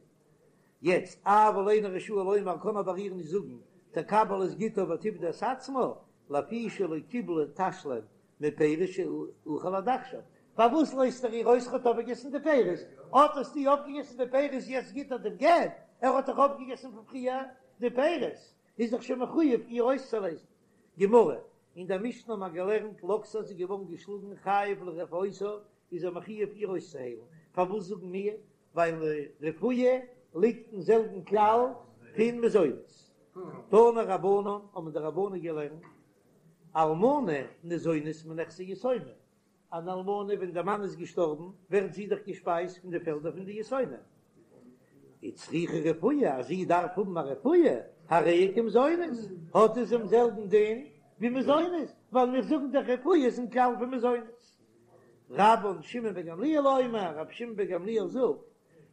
יעצט, אבל אינו רשאי לומר קען אבער איר נישט זאגן תקבל את גיטה ותפדה את עצמה, לפי שלא קיבלה תשלום מפירות שאכל עד עכשיו, פארוואס לויזט ער איר אויס ער האט אויפגעגעסן די פירות, אט האסטו אויפגעגעסן די פירות יעצט גיט ער דעם גט, ער האט דאך אויפגעגעסן פון פריער די פירות, איז דאך שוין מחויב איר אויסצולייזן. גמרא, אין דער משנה האט מען געלערנט לקתה זי איז געווארן געשלאגן חייב לרפאותה איז ער מחויב איר אויסצוהיילן, פארוואס זאגן מיר ווייל רפואה ליגט אין זעלבן כלל פון מזונות. תנו רבנן האבן די רבנן געלערנט אלמנה ניזונית מנכסי יתומים, אן אלמנה ווען דער מאן איז געשטארבן ווערט זי דאך געשפייזט פון די פעלדער פון די יתומים, וצריכה רפואה, אז זי דארף האבן א רפואה, הרי היא כמזונות, האט עס דעם זעלבן דין ווי מזונות, ווייל מיר זאגן דאך רפואה איז אין כלל פון מזונות. רבן שמעון בן גמליאל אומר, רבי שמעון בן גמליאל זאגט,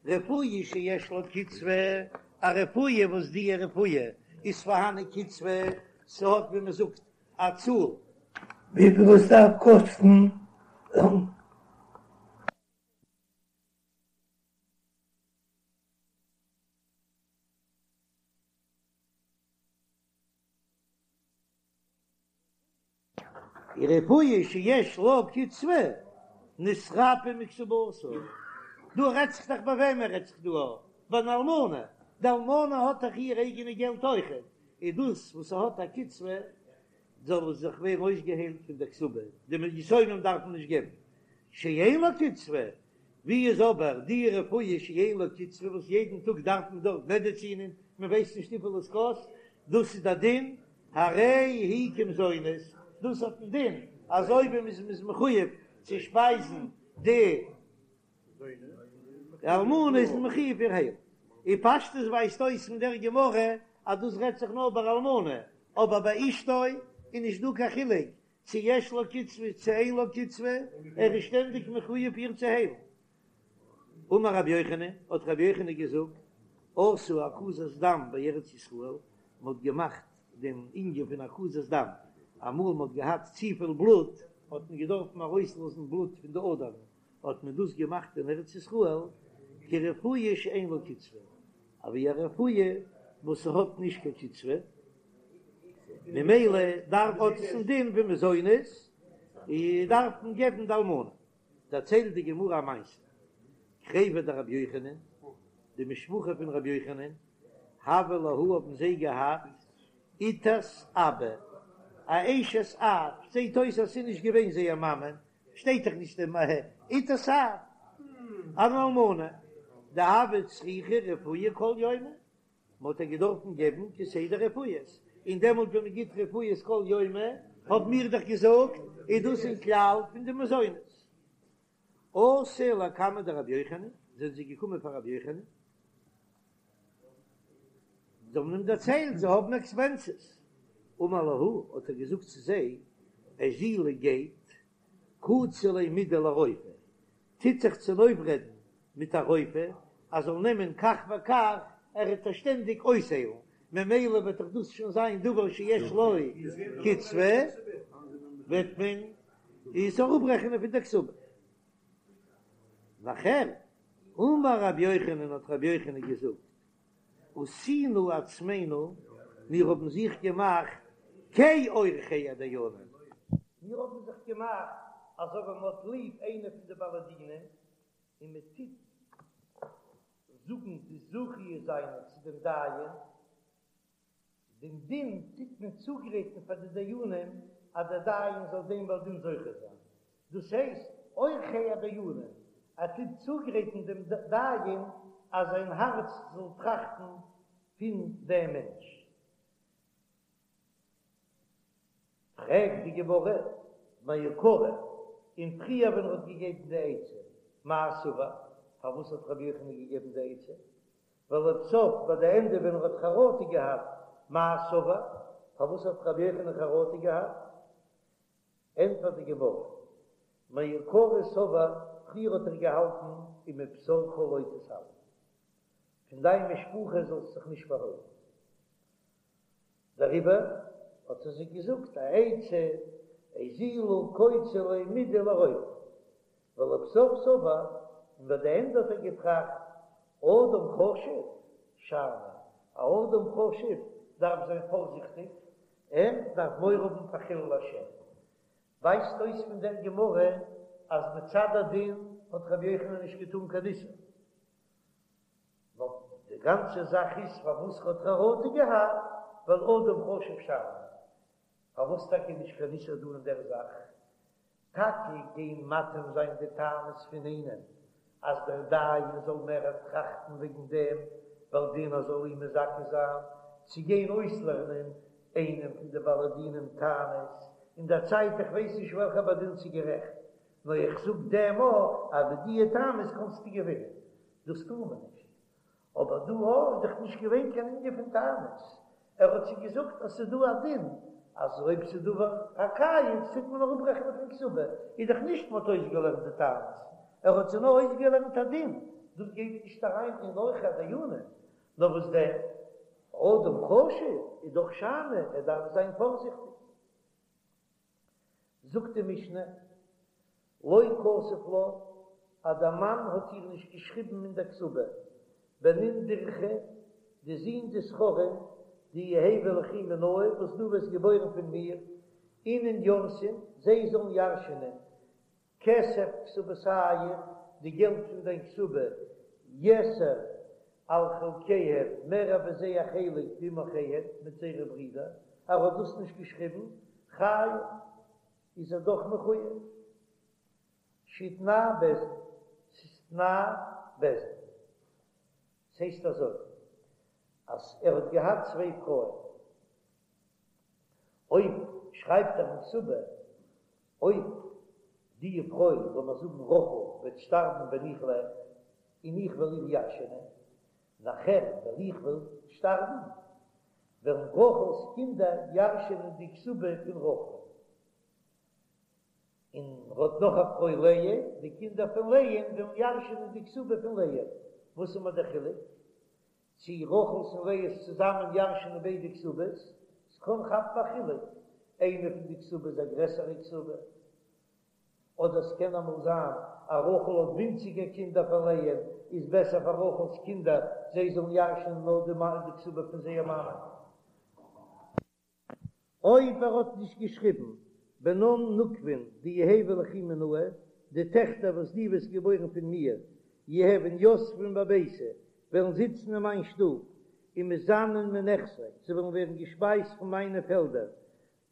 רפואה שיש לה קצבה, א רפואה וואס די רפואה. איז פארהאן א קצבה, ס'האט ווי מ'זאגט א צאל. וויפיל עס דארף קאסטן. רפואה שיש לה קצבה נתרפא מכתובתה, דא רעדט זיך דאך ביי וועמען רעדט זיך דא? ביי אן אלמנה, די אלמנה האט דאך איר אייגענע געלט אויכעט, איז דאס וואס ס'האט א קצבה זאל עס זיך ווערן אויסגעהיילט פון דער כתובה, די יתומים דארפן נישט געבן, שאין לה קצבה, ווי איז אבער די רפואה שאין לה קצבה וואס יעדן טאג דארף מען דארט מעדעצינען, מען ווייסט נישט וויפיל עס קאסט, דאס איז די דין, הרי היא כמזונות, דאס האט דעם דין אזוי ווי מען איז מחויב צו שפייזן די אלמנה איז מען מחויב איר היילן. אין פשטות ווייזט אויס פון דער גמרא אז דאס רעדט זיך נאר ביי אלמנה, אבער ביי אשתו איז נישט דא קיין חילוק צו יש לה קצבה צו אין לה קצבה, ער איז שטענדיג מחויב איר צו היילן. אמר רבי יוחנן, האט רבי יוחנן געזאגט, עשו הקזת דם בארץ ישראל, מען האט געמאכט דעם ענין פון הקזת דם, אמאל מען האט געהאט צופיל בלוט, האט מען געדארפן ארויסלאזן בלוט פון די אדערן, האט מען דאס געמאכט אין ארץ ישראל כרפואה שאין לה קצבה, אווי א רפואה וואס ס'האט נישט קיין קצבה, ממילא דארף האט עס א דין ווי מזונות, און דארף מען געבן די אלמנה. דערציילט די גמרא א מעשה, קריבי דרבי יוחנן, די משפחה פון רבי יוחנן, הוה להו האבן זיי געהאט איתת אבא, א אשת אב, זעט אויס אז ס'איז נישט געווען זייער מאמע, שטייט דאך נישט דעם איתת אב, אן אלמנה, דהוה צריכה רפואה כל יומא, מען האט איר געדארפן געבן כסדר רפואות, און דעמאלט ווען מען גיט רפואות כל יומא, האבן מיר דאך געזאגט, איז דאס אין כלל פון די מזונות. אתו לקמיה דרבי יוחנן, זענען זיי געקומען פאר רבי יוחנן, זיי האבן אים דערציילט זיי האבן עקספענסעס, אמר להו, האט ער געזאגט צו זיי, אזילו גייט, קוצו ליה מידי לרופא, טוט זיך צונויפרעדן מיט א רופא אז זאל נעמען כך וכך, ער וועט עס שטענדיג אויסהיילן, ממילא וועט דאך דאס שוין זיין דבר שיש לו קצבה, וועט מען עס אראפרעכענען פון די כתובה. נאכער, אמר רבי יוחנן האט רבי יוחנן געזאגט, עשינו עצמינו, מיר האבן זיך געמאכט כעורכי הדיינים, מיר האבן זיך געמאכט אזוי ווי מען האט ליב איינע פון די בעלי דינים, און מען טוט זאגן די זכיות זיינע צו דעם דיין, דעם דין טוט מען צוגרייטן פאר די דיינים אז דער דיין זאל דעם בעל דין זוכה זיין, דאס הייסט עורכי הדיינים, ער טוט צוגרייטן דעם דיין אז זיין הארץ זאל טראכטן פון דעם מענטש. פרעגט די גמרא, מעיקרא, און פריער ווען ער האט געגעבן די עצה, מאי סבר, פארוואס האט רבי יוחנן געגעבן די עצה? ולבסוף ביי די ענדע ווען ער האט חרטה געהאט, מאי סבר, פארוואס האט רבי יוחנן חרטה געהאט? ענטפערט די גמרא, מעיקרא סבר, פריער האט ער געהאלטן ומבשרך לא תתעלם, פון דיין משפחה זאלסט זיך נישט פארהוילן, דעריבער האט ער זיי געזאגט א עצה, אזילו קוצו ליה מידי לרופא, ולבסוף סבר, און ביי די ענדע האט ער געטראכט, אדם חשוב שאני, א אדם חשוב דארף זיין פארזיכטיג, ער דארף מורא האבן פאר חילול השם. ווייזט אויס פון דער גמרא אז מצד הדין האט רבי יוחנן נישט געטאן קיין איסור, נאר די גאנצע זאך איז פארוואס האט חרטה געהאט, ווייל אדם חשוב שאני. פארוואס טאקע נישט קיין איסור דא אין דער זאך? טאקע גיין מטעים זיין די טענות פון איינעם אז דער דיין זאל מער טראכטן וועגן דעם בעל דין אז זאל אים מזכה זיין, צו גיין אויסלערנען איינעם פון די בעלי דינים טענות אין דער צייט איך ווייס נישט וועלכער בעל דין ס'איז גערעכט נאר איך זאג דעם א אז מיט דיע טענות קענסטו געווינען דאס טאר מען נישט אבער דא איז דאך נישט געווען קיין ענין פון טענות, ער האט זיי געזאגט אז ס'איז דא א דין אז אויב ס'איז דבר הקיץ טוט מען אראפרעכענען פון כתובה, איז דאך נישט מ'האט אויסגעלערנט די טענות, ער האט זיי נאר אויסגעלערנט א דין, דאס גייט נישט אריין אין עורכי הדיינים, נאר וואס דען? אדם חשוב איז דאך שאני, ער דארף זיין פארזיכטיג. זאגט די משנה, לא כתב לה, אז דער מאן האט איר נישט געשריבן אין דער כתובה, בנין דכרי, די זין די זכרים, דיהוו ליכי מינאי, וואס דו וועסט געבוירן פון מיר, אינון ירתון, זיי זאלן ירש'ענען, כסף כתובתיך, די געלט פון דיין כתובה, יתר על חלקיהם, מער ווי זייער חלק ועם אחיהם, מיט זייערע ברידער, ער האט דאס נישט געשריבן, חייב, איז ער דאך מחויב. שהוא תנאי בית דין, ס'איז תנאי בית דין. ס'הייסט אזוי, אז ער האט געהאט צוויי פרויען, אויב שרייבט ער אין כתובה, אויב די פרוי, לאמיר זאגן רחל, וועט שטארבן ווען איך לעב, און איך וועל איר ירש'ענען, נאכער ווען איך וועל שטארבן, וועלן רחל'ס קינדער ירש'ענען די כתובה פון רחל. און ער האט נאך א פרוי לאה, די קינדער פון לאה'ן וועלן ירש'ענען די כתובה פון לאה. וואס איז מיר דער חילוק? צי רחל'ס און לאה'ס צוזאמען ירש'ענען ביידע כתובות? ס'קען כאפן א חילוק, איינע פון די כתובות איז א גרעסערע כתובה, אדער ס'קען אמאל זיין אז רחל האט ווינציגער קינדער פון לאה'ן, איז בעסער פאר רחל'ס קינדער זיי זאלן ירש'ענען נאר די כתובה פון זייער מאמע. אויב ער האט נישט געשריבן בנן נוקבין דיהוו ליכי מינאי, די טעכטער וואס דו וועסט געבוירן פון מיר, יהוון יתבן בביתי, וועלן זיצן אין מיין שטוב, ומזנן מנכסי, זיי וועלן ווערן געשפייזט פון מיינע פעלדער,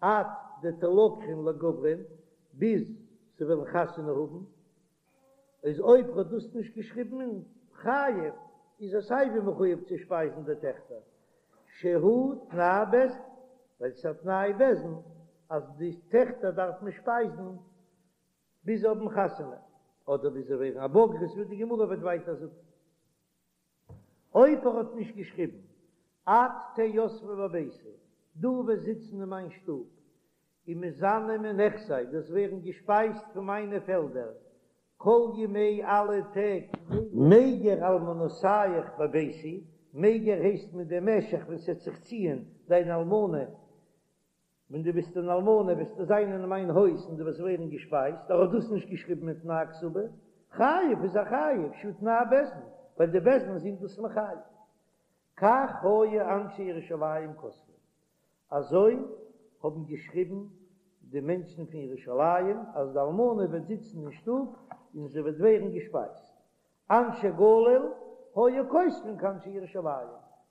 עד דתלקחן לגוברין, ביז זיי וועלן חתונה האבן. איז אויב ער האט דאס נישט געשריבן אין חייב איז ער סייווי מחויב צו שפייזן די טעכטער שהוא תנאי בית דין, ווייל ס'איז א תנאי בית דין אז די טעכטער דארף מען שפייזן ביז זיי האבן חתונה אדער ביז זיי ווערן א בוגרת ווי די גמרא וועט ווייטער זאגן. אויב ער האט נישט געשריבן את תהא יתבא בביתי, דו וועסט זיצן אין מיין שטוב, ומזנה מנכסי, דו'סט ווערן געשפייזט פון מיינע פעלדער, כל ימי אלע טעג. מיגר אלמנותיך בביתי, מיגר הייסט מיט דעם משך ווען ס'עט זיך ציען דיין אלמנה, ווען דו ביסט אן אלמנה וועסטו זיין אין מיין הויז און דו וועסט ווערן געשפייזט, ער האט דאס נישט געשריבן אין תנאי כתובה, חייב איז ער חייב, שהוא תנאי בית דין, ווייל די בית דין זענען דאס מחייב. כך היו אנשי ירושלים כותבים, אזוי האבן געשריבן די מענטשן פון ירושלים, אז די אלמנה וועט זיצן אין שטוב און זי וועט ווערן געשפייזט. אנשי גליל היו כותבין כאנשי ירושלים,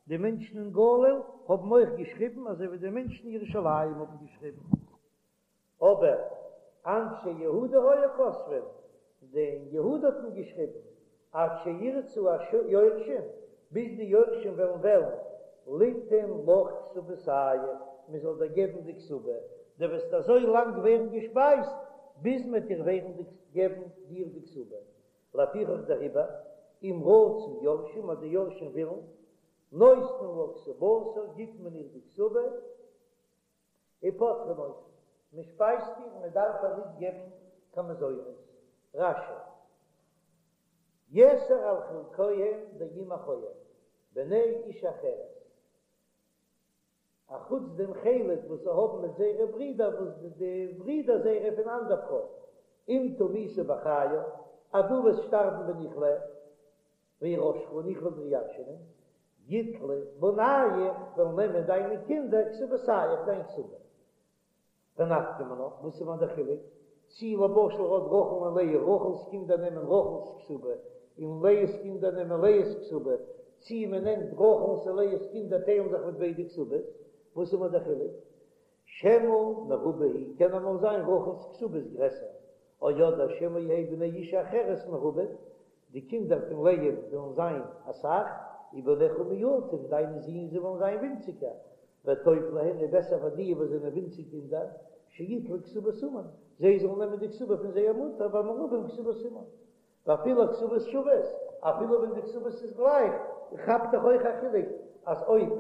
די מענטשן אין גליל האבן אויך געשריבן אזוי ווי די מענטשן אין ירושלים האבן געשריבן. אבער אנשי יהודה היו כותבין, די אין יהודה האט מען געשריבן, עד שירצו היורשים, ביז די יורשים וועלן וועלן, ליתן לך כתובתיך, מען זאל דיר געבן די כתובה, דו וועסט אזוי לאנג ווערן געשפייזט, ביז מען וועט דיר ווערן געבן דיר די כתובה. לפיכך דעריבער, אם רצו יורשים, אז די יורשים ווילן, נותנין לה כתובתה, גיט מען איר די כתובה, ופוטרין אותה, מען שפייזט איר, מען דארף איר ניט געבן קיין מזונות. רש"י, יתר על חלקיהם דעם אחיהם, בני אשה אחרת, א חוץ דעם חלק וואס זיי האבן מיט זייערע ברידער וואס די ברידער זייערע פון אנדער פרוי, אם תמותי בחיי, אז דו וועסט שטארבן ווען איך לעב, ואירשך און איך וועל דיר ירש'ענען, יטלו בנייך, וועלן נעמען דיינע קינדער כתובתיך, דיין כתובה. ונפקא מינה, וואס איז מיר דער חילוק, צי למשל האט רחל און לאה, רחל'ס קינדער נעמען רחל'ס כתובה, און לאה'ס קינדער נעמען לאה'ס כתובה, צי מען נעמט רחל'ס און לאה'ס קינדער טיילן זיך מיט ביידע כתובות, וואס איז מיר דער חילוק? שמא מרובה היא, קען אמאל זיין רחל'ס כתובה איז גרעסער, או אדער שמא יהא בני אשה אחרת מרובים, די קינדער פון לאה וועלן זיין אסאך, ובניך מועטים, דיינע זין זיי וועלן זיין ווינציגער, וטוב להן איז בעסער פאר די וואס זענען ווינציג קינדער, שיטלו כתובת אמן, זיי זאלן נעמען די כתובה פון זייער מוטער, והמרובים כתובת אמן. ואפילו הכתובות שוות, אפילו ווען די כתובות איז גלייך, כאפט דאך אויך א חילוק אז אויב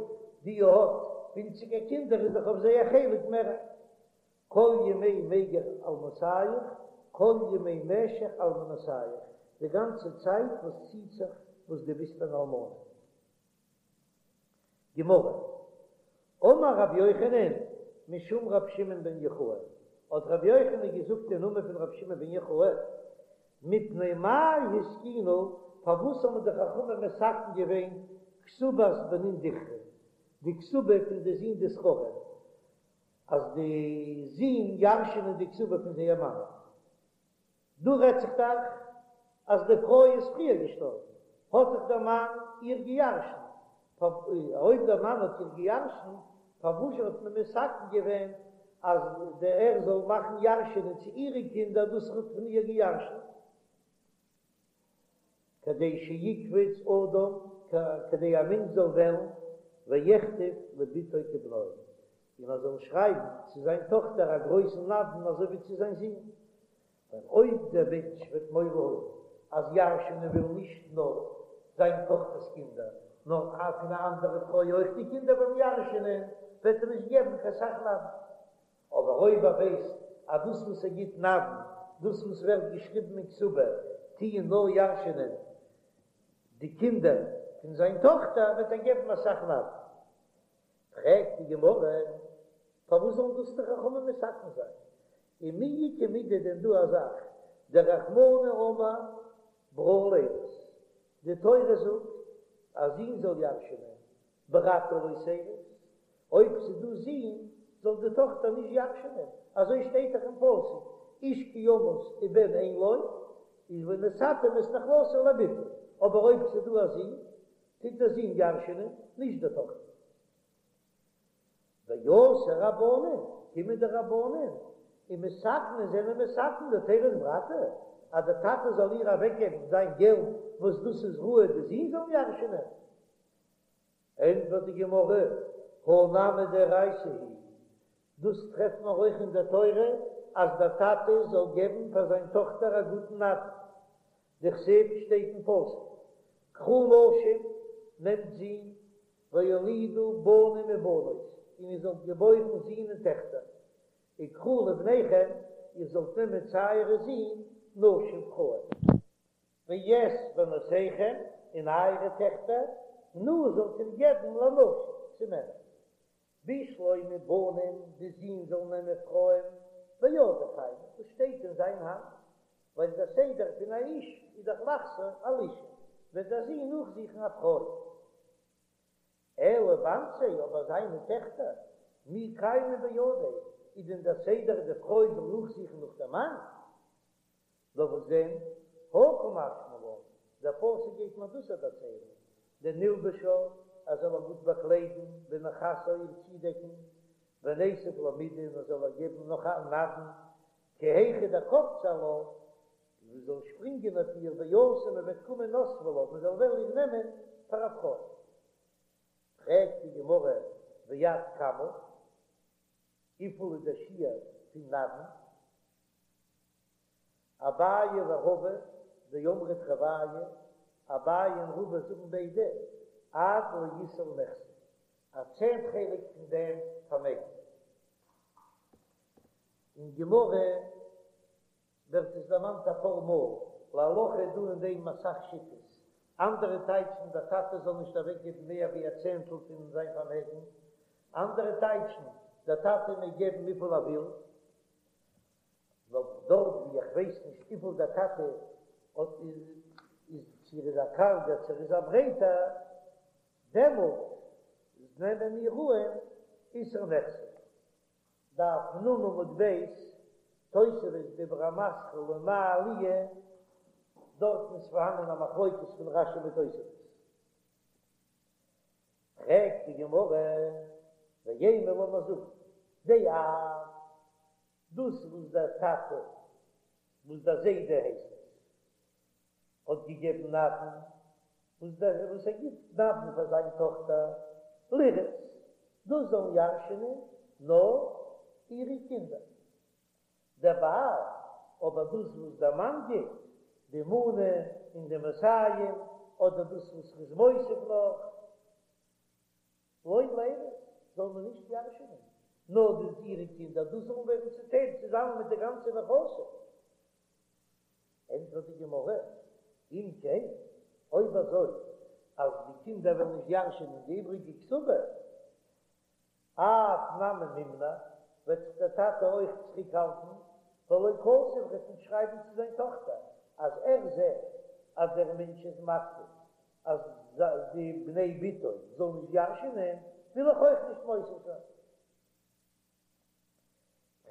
די האט ווינציגער קינדער איז דאך אויף זיי א חלק מער. כל ימי מיגר אלמותיך, כל ימי משך אלמנותיך, די גאנצע צייט וואס ציט זיך וואס דו ביסט אן אלמנה. גמרא, אמר רבי יוחנן משום רבי שמעון בן יוחאי, האט רבי יוחנן געזאגט אין נאמען פון רבי שמעון בן יוחאי, מפני מה התקינו, פארוואס האבן די חכמים מתקן געווען כתובת בנין דכרין, די כתובה פון די זין די זכרים, אז די זין ירש'ענען די כתובה פון זייער מאמע. דא רעדט זיך דאך אז די פרוי איז פריער געשטארבן, האט דאך דער מאן איר געירשנט, אויב דער מאן האט איר געירשנט, פארוואזשע האט מען מתקן געווען אז דער ער זאל מאכן ירש'ענען צו אירע קינדער דאס ער האט פון איר געירשנט? כדי שיקפוץ אדם, כדי א מענטש זאל וועלן, ויכתוב לבתו כבנו, און ער זאל שרייבן צו זיין טאכטער א גרויסן נדן אזוי ווי צו זיין זון. ווייל אויב דער מענטש וועט מורא האבן אז ירש'ענען וויל נישט נאר זיין טאכטער'ס קינדער, נאר פון א אנדערע פרוי אויך די קינדער וועלן ירש'ענען, וועט ער נישט געבן קיין סך נדן. אבער אויב ער ווייסט אז דאס וואס ער גיט נדן, דאס וואס ווערט געשריבן אין כתובה, טוען נאר ירש'ענען די קינדער פון זיין טאכטער, וועט ער געבן אסאך נדן. פרעגט די גמרא, פארוואס זאלן דאס די חכמים מתקן זיין? ומי איכא מידי דען דא א זאך, דרחמנא אמר ברא לירות, די תורה זאגט א זון זאל ירש'ענען, ברתא לא תירות, אויב ס'איז דא זין זאל די טאכטער נישט ירש'ענען, אזוי שטייט דאך אין פסוק, איש כי ימות ובן אין לו, איז ונתתם את נחלתו לבתו, אבער אויב ס'איז דא א זון, טוט דער זון ירש'ענען, נישט די טאכטער. ואתו רבנן, קומען די רבנן ומתקני זענען מתקן דתירות ברתא, אז דער טאטע זאל איר אוועקגעבן זיין געלט וואס דאס איז ראוי די זין זאלן ירש'ענען. ענטפערט די גמרא, הא נמי דאורייתא היא, דאס טרעפט מען אויך אין דער תורה אז דער טאטע זאל געבן פאר זיין טאכטער א גוטן נדן, דכתיב שטייט אין פסוק, קחו נשים, נעמט זין, והולידו בנים ובנות, און איר זאלט געבוירן זין און טעכטער, וקחו לבניכם, איר זאלט נעמען צו אייערע זין, נשים פרויען. ואת בנותיכם, און אייערע טעכטער, תנו זאלט איר געבן לנשים, צו מענער. בשלמא בנים, די זין זאלן נעמען פרויען, בידיה קיימי, דאס שטייט אין זיין האנט, ווייל דער סדר פון א איש איז דאך לחזור על אשה, וועט דער זון נאכזוכן א פרוי. אלא בנתיה, אבער זיינע טעכטער, מי קיימא בידיה, איז דען דער סדר די פרוי זאל נאכזוכן נאך דעם מאן? נאר וואס דען, הא קא משמע לן, דער פסוק גייט מיר דאס דערציילן, דנלבשה, ער זאל איר גוט באקליידן, ונכסה איר צודעקן, וניתיב לה מידי, און ער זאל איר געבן נאך א נדן, כי היכי דקפצי עלה, מען זאל שפרינגען אויף איר ואתו מען וועט קומען נסבי לה, מען זאל וועלן איר נעמען פאר א פרוי. פרעגט די גמרא ועד כמה, וויפיל איז דער שיעור פון נדן? אביי ורבא דאמרי תרוייהו, אביי און רבא זאגן ביידע, עד לעישור נכסי, א צענט חלק פון דעם פארמעגן. אין גמרא ווערט עס דערמאנט אפאר מאל, להלכה איז דא אין דעם אסאך שיטות, אנדערע טייטשן דער טאטע זאל נישט אוועקגעבן מער ווי א צענטל פון זיין פארמעגן, אנדערע טייטשן דער טאטע מעג געבן וויפיל ער וויל, נאר דארט ווי איך ווייס נישט וויפיל דער טאטע האט איז צו ער איז א קארגער צו ער איז א ברייטער, דעמאלט נעמען מיר אן עישור נכסי. דף נ עמוד ב', תוספות דיבור המתחיל ומה עליה, דארטן איז פארהאנען א מחלוקת פון רש"י מיט תוספות. פרעגט די גמרא, ואימא לאמיר זאגן, דאב, דאס וואס דער טאטע, וואס דער זיידע הייסט עס, האט געגעבן נדן, וואס דער וואס ער גיט נדן פאר זיין טאכטער לירות, דאס זאלן ירש'ענען נאר אירע קינדער. דבעל, אבער דאס וואס דער מאן גיט, די מנה און די מאתים, אדער דאס וואס ר'איז מוסיף נאך, לא לירות, זאל מען נישט ירש'ענען, נאר די אירע קינדער, דאס זאלן ווערן צוטיילט צוזאמען מיט די גאנצע נכסים. ענטפערט די גמרא, אם כן, אויב אזוי, אז די קינדער וועלן נישט ירש'ענען די איבריגע כתובה, אב נמי מימנע, וועט זיך דער טאטע אויך צוריקהאלטן, ולא כתב, וועט נישט שרייבן צו זיין טאכטער אז ער זעט אז דער מענטש איז מקפיד אז די בני בתו זאלן נישט ירש'ענען, וויל איך אויך נישט מוסיף זיין.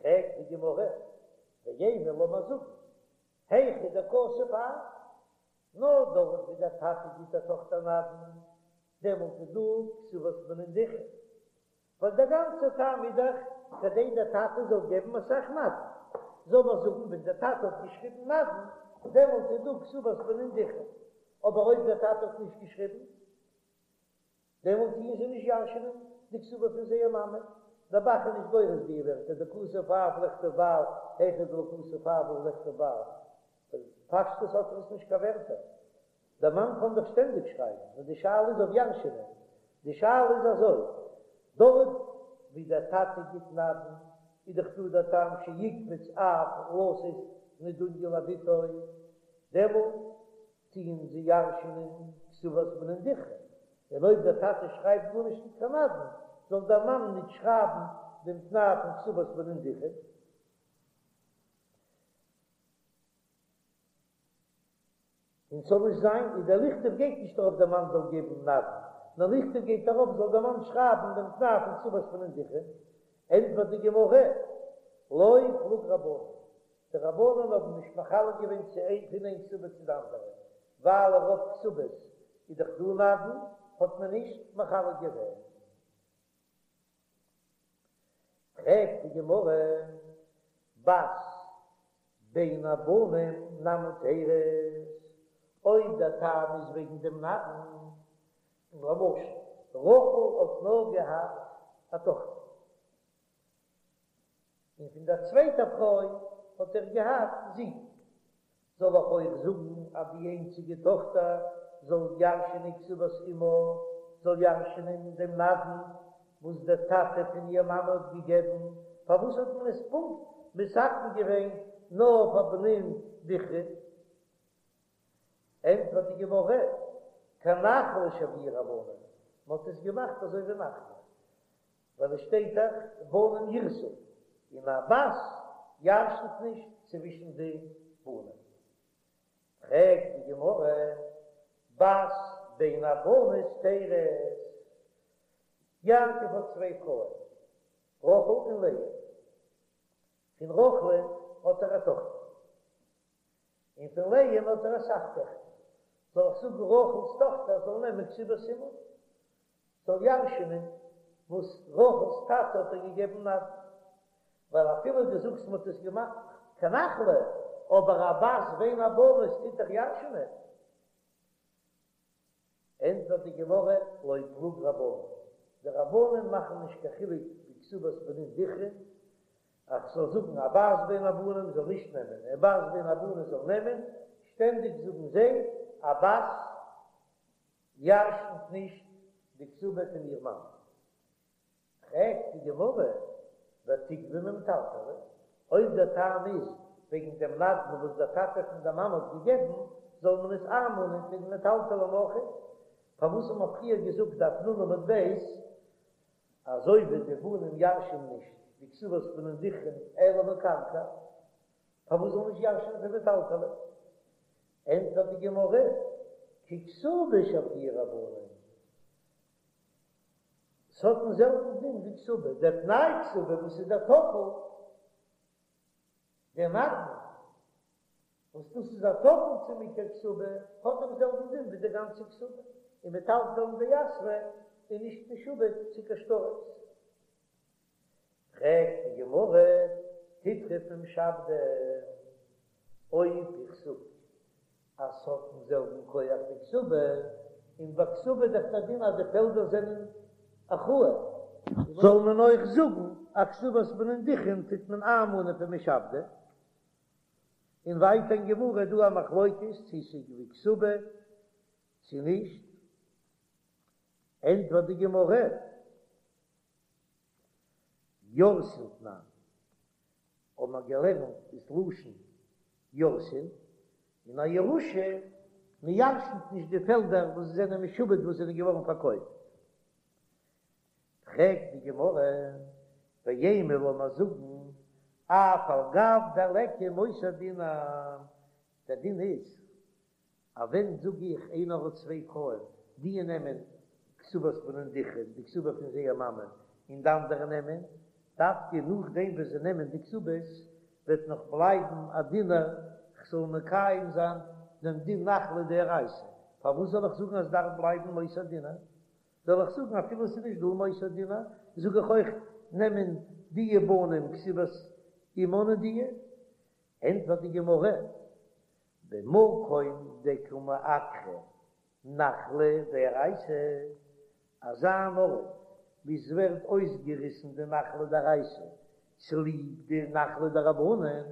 פרעגט די גמרא, ואימא לאמיר זאגן, היכא דכתב אב, נאר דארט ווי דער טאטע גיט דער טאכטער נדן, דעמאלט איז דא כתובת בנין דכרין, ווייל דער גאנצער טעם איז דאך כדי דער טאטע זאל געבן אסאך נדן, זאל מען זאגן ווען דער טאטע האט געשריבן נדן, דעמאלט איז דא כתובת בנין דכרין, אבער אויב דער טאטע האט נישט געשריבן, דעמאלט טוען זיי נישט ירש'נען די כתובה פון זייער מאמע. דער ב"ח איז נישט גורס די ווערטער דכתב אב לכתוב בעל היכא דלא כתב אב לכתוב בעל. פשטות האט ער עס נישט קיין ווערטער. דער מאן קען דאך שטענדיג שרייבן, נאר די שאלה איז אויף ירש'נען. די שאלה איז אזוי, דארט ווי דער טאטע גיט נדן, איז דאך דא דער טעם שיקפוץ אב לתת נדוניא לבתו, דעמאלט טוען זיי ירש'נען כתובת בנין דכרין, און אויב דער טאטע שרייבט גארנישט ניט קיין נדן, זאל דער מאן ניט שרייבן דעם תנאי פון כתובת בנין דכרין. און ס'זאל נישט זיין, און דער לכתוב גייט נישט ארויף דער מאן זאל געבן נדן, נאר לכתוב גייט ארויף זאל דער מאן שרייבן דעם תנאי פון כתובת בנין דכרין. ענטפערט די גמרא, לא פלוג רבנן, די רבנן האבן נישט מחלק געווען צו איין פון איין כתובה צו די אנדערע, ווייל רוב כתובות איז דאך דא נדן, האט מען נישט מחלק געווען. פרעגט די גמרא, בת בין הבנים נמי תירות, אויב דער טעם איז וועגן דעם נדן, למשל רחל האט נאר געהאט א טאכטער, און פון דער צווייטער פרוי האט ער געהאט זין. זאל איך אויך זאגן אז די איינציגע טאכטער זאל ירש'ענען כתובת אמה, זאל ירש'ענען דעם נדן וואס דער טאטע פון איר מאמע האט געגעבן? פארוואס האט מען עס פונקט מתקן געווען נאר פאר בנין דכרין? ענטפערט די גמרא, כנחלה שויוה רבנן, מען האט עס געמאכט אזוי ווי נחלה, ווייל עס שטייט דאך בנים ירשו, און א בת ירש'נט נישט צווישן די בנים. פרעגט די גמרא, בת בין הבנות תירות, יעקב האט צוויי פרויען, רחל און לאה, פון רחל'ן האט ער א טאכטער, און פון לאה'ן האט ער אסאך טעכטער, זאל איך זאגן רחל'ס טאכטער זאל נעמען כתובת אמה, זאל ירש'נען וואס רחל'ס טאטע האט איר געגעבן נדן, ווייל אפילו דו זאגסט מ'האט עס געמאכט כנחלה, אבער א בת בין הבנות טוט דאך ירש'נען. ענטפערט די גמרא, לא פלוג רבנן, די רבנן מאכן נישט קיין חילוק ווי כתובת בנין דכרין, אז כ'זאל זאגן א בת בין הבנים זאל נישט נעמען, א בת בין הבנות זאל נעמען, שטענדיג זאגן זיי א בת ירש'נט נישט די כתובה פון איר מאן. פרעגט די גמרא, ותיגבי ממטלטלי, אויב דער טעם איז וועגן דעם נדן וואס דער טאטע פון דער מאמע האט געגעבן, זאל מען עס איינמאנען פון מטלטלים אויך? פארוואס האט מען פריער געזאגט דף נ עמוד ב', אזוי ווי די בנים ירש'ן נישט די כתובת בנין דכרין אלא מקרקע, פארוואס זאל נישט ירש'ן פון מטלטלי? ענטפערט די גמרא, ככתובה שויוה רבנן, ס'האט דעם זעלבן דין ווי כתובה, דער תנאי כתובה וואס איז דער טפל, דער נדן, וואס דאס איז א טפל צום עיקר כתובה, האט דעם זעלבן דין ווי די גאנצע כתובה, און מטלטלין דיתבא איז נישט משועבד צו קיין שטרות. פרעגט די גמרא, תיטרף ממשעבדי, אויב איך זאג אז ס'האט דעם זעלבן כח ווי כתובה, און ביי כתובה איז דאך דער דין אז די פעלדער זענען אחראי, זאל מען אויך זאגן אז כתובת בנין דכרין טוט מען איינמאנען פון משעבדי? און ווייטער אין גמרא איז דא א מחלוקת צו ס'איז ווי כתובה צו נישט, ענטפערט די גמרא, יורשין תנן, האבן מיר געלערנט איז לשון יורשין, און א ירושה. מען ירשנ'ט נישט די פעלדער וואס זענען משועבד וואס זענען געווארן פארקויפט. פרעגט די גמרא, ואימא לאמיר זאגן, אף על גב דליכא מותר דינר, דער דין איז אז ווען זאג איך איינער האט צוויי פרויען, די נעמען כתובת בנין דכרין, די כתובה פון זייער מאמע, און די אנדערע נעמען, דווקא נאכדעם וואס זיי נעמען די כתובות, וועט נאך בלייבן א דינר, כ'זאל מקיים זיין דעם דין נחלה דאורייתא, פארוואס זאל איך זאגן אז דארף בלייבן מותר דינר? זאל איך זאגן אפילו ס'איז נישט דא מותר דינר, זאג איך אויך נעמען די בנים כתובת אמן און די? ענטפערט די גמרא, במקום דקא מעקרא נחלה דאורייתא, אזא אן ארט וואו ס'ווערט אויסגעריסן די נחלה דאורייתא צוליב די נחלה דרבנן,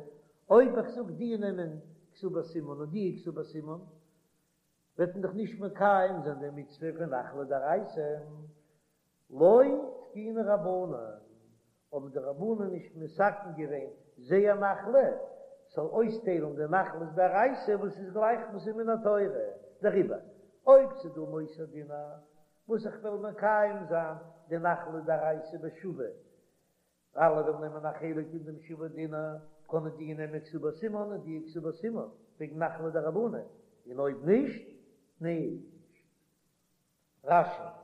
אויב איך זאג די נעמען כתובת אמן און די כתובת אמן, וועט מען דאך נישט מקיים זיין די מצוה פון נחלה דאורייתא, לא תקינו רבנן, האבן די רבנן נישט מתקן געווען זייער נחלה, ס'זאל אויסטיילן די נחלות דאורייתא וואס איז גלייך וואס איז מן התורה, דעריבער אויב ס'איז דא מותר דינר וואס איך וועל מקיים זיין די נחלה דאורייתא בשווה אלע וועלן נעמען א חלק אין דעם שווה דינר, קענען די נעמען כתובת אמן און די כתובת אמן, וועגן נחלה דרבנן, און אויב נישט, נישט. רש"י.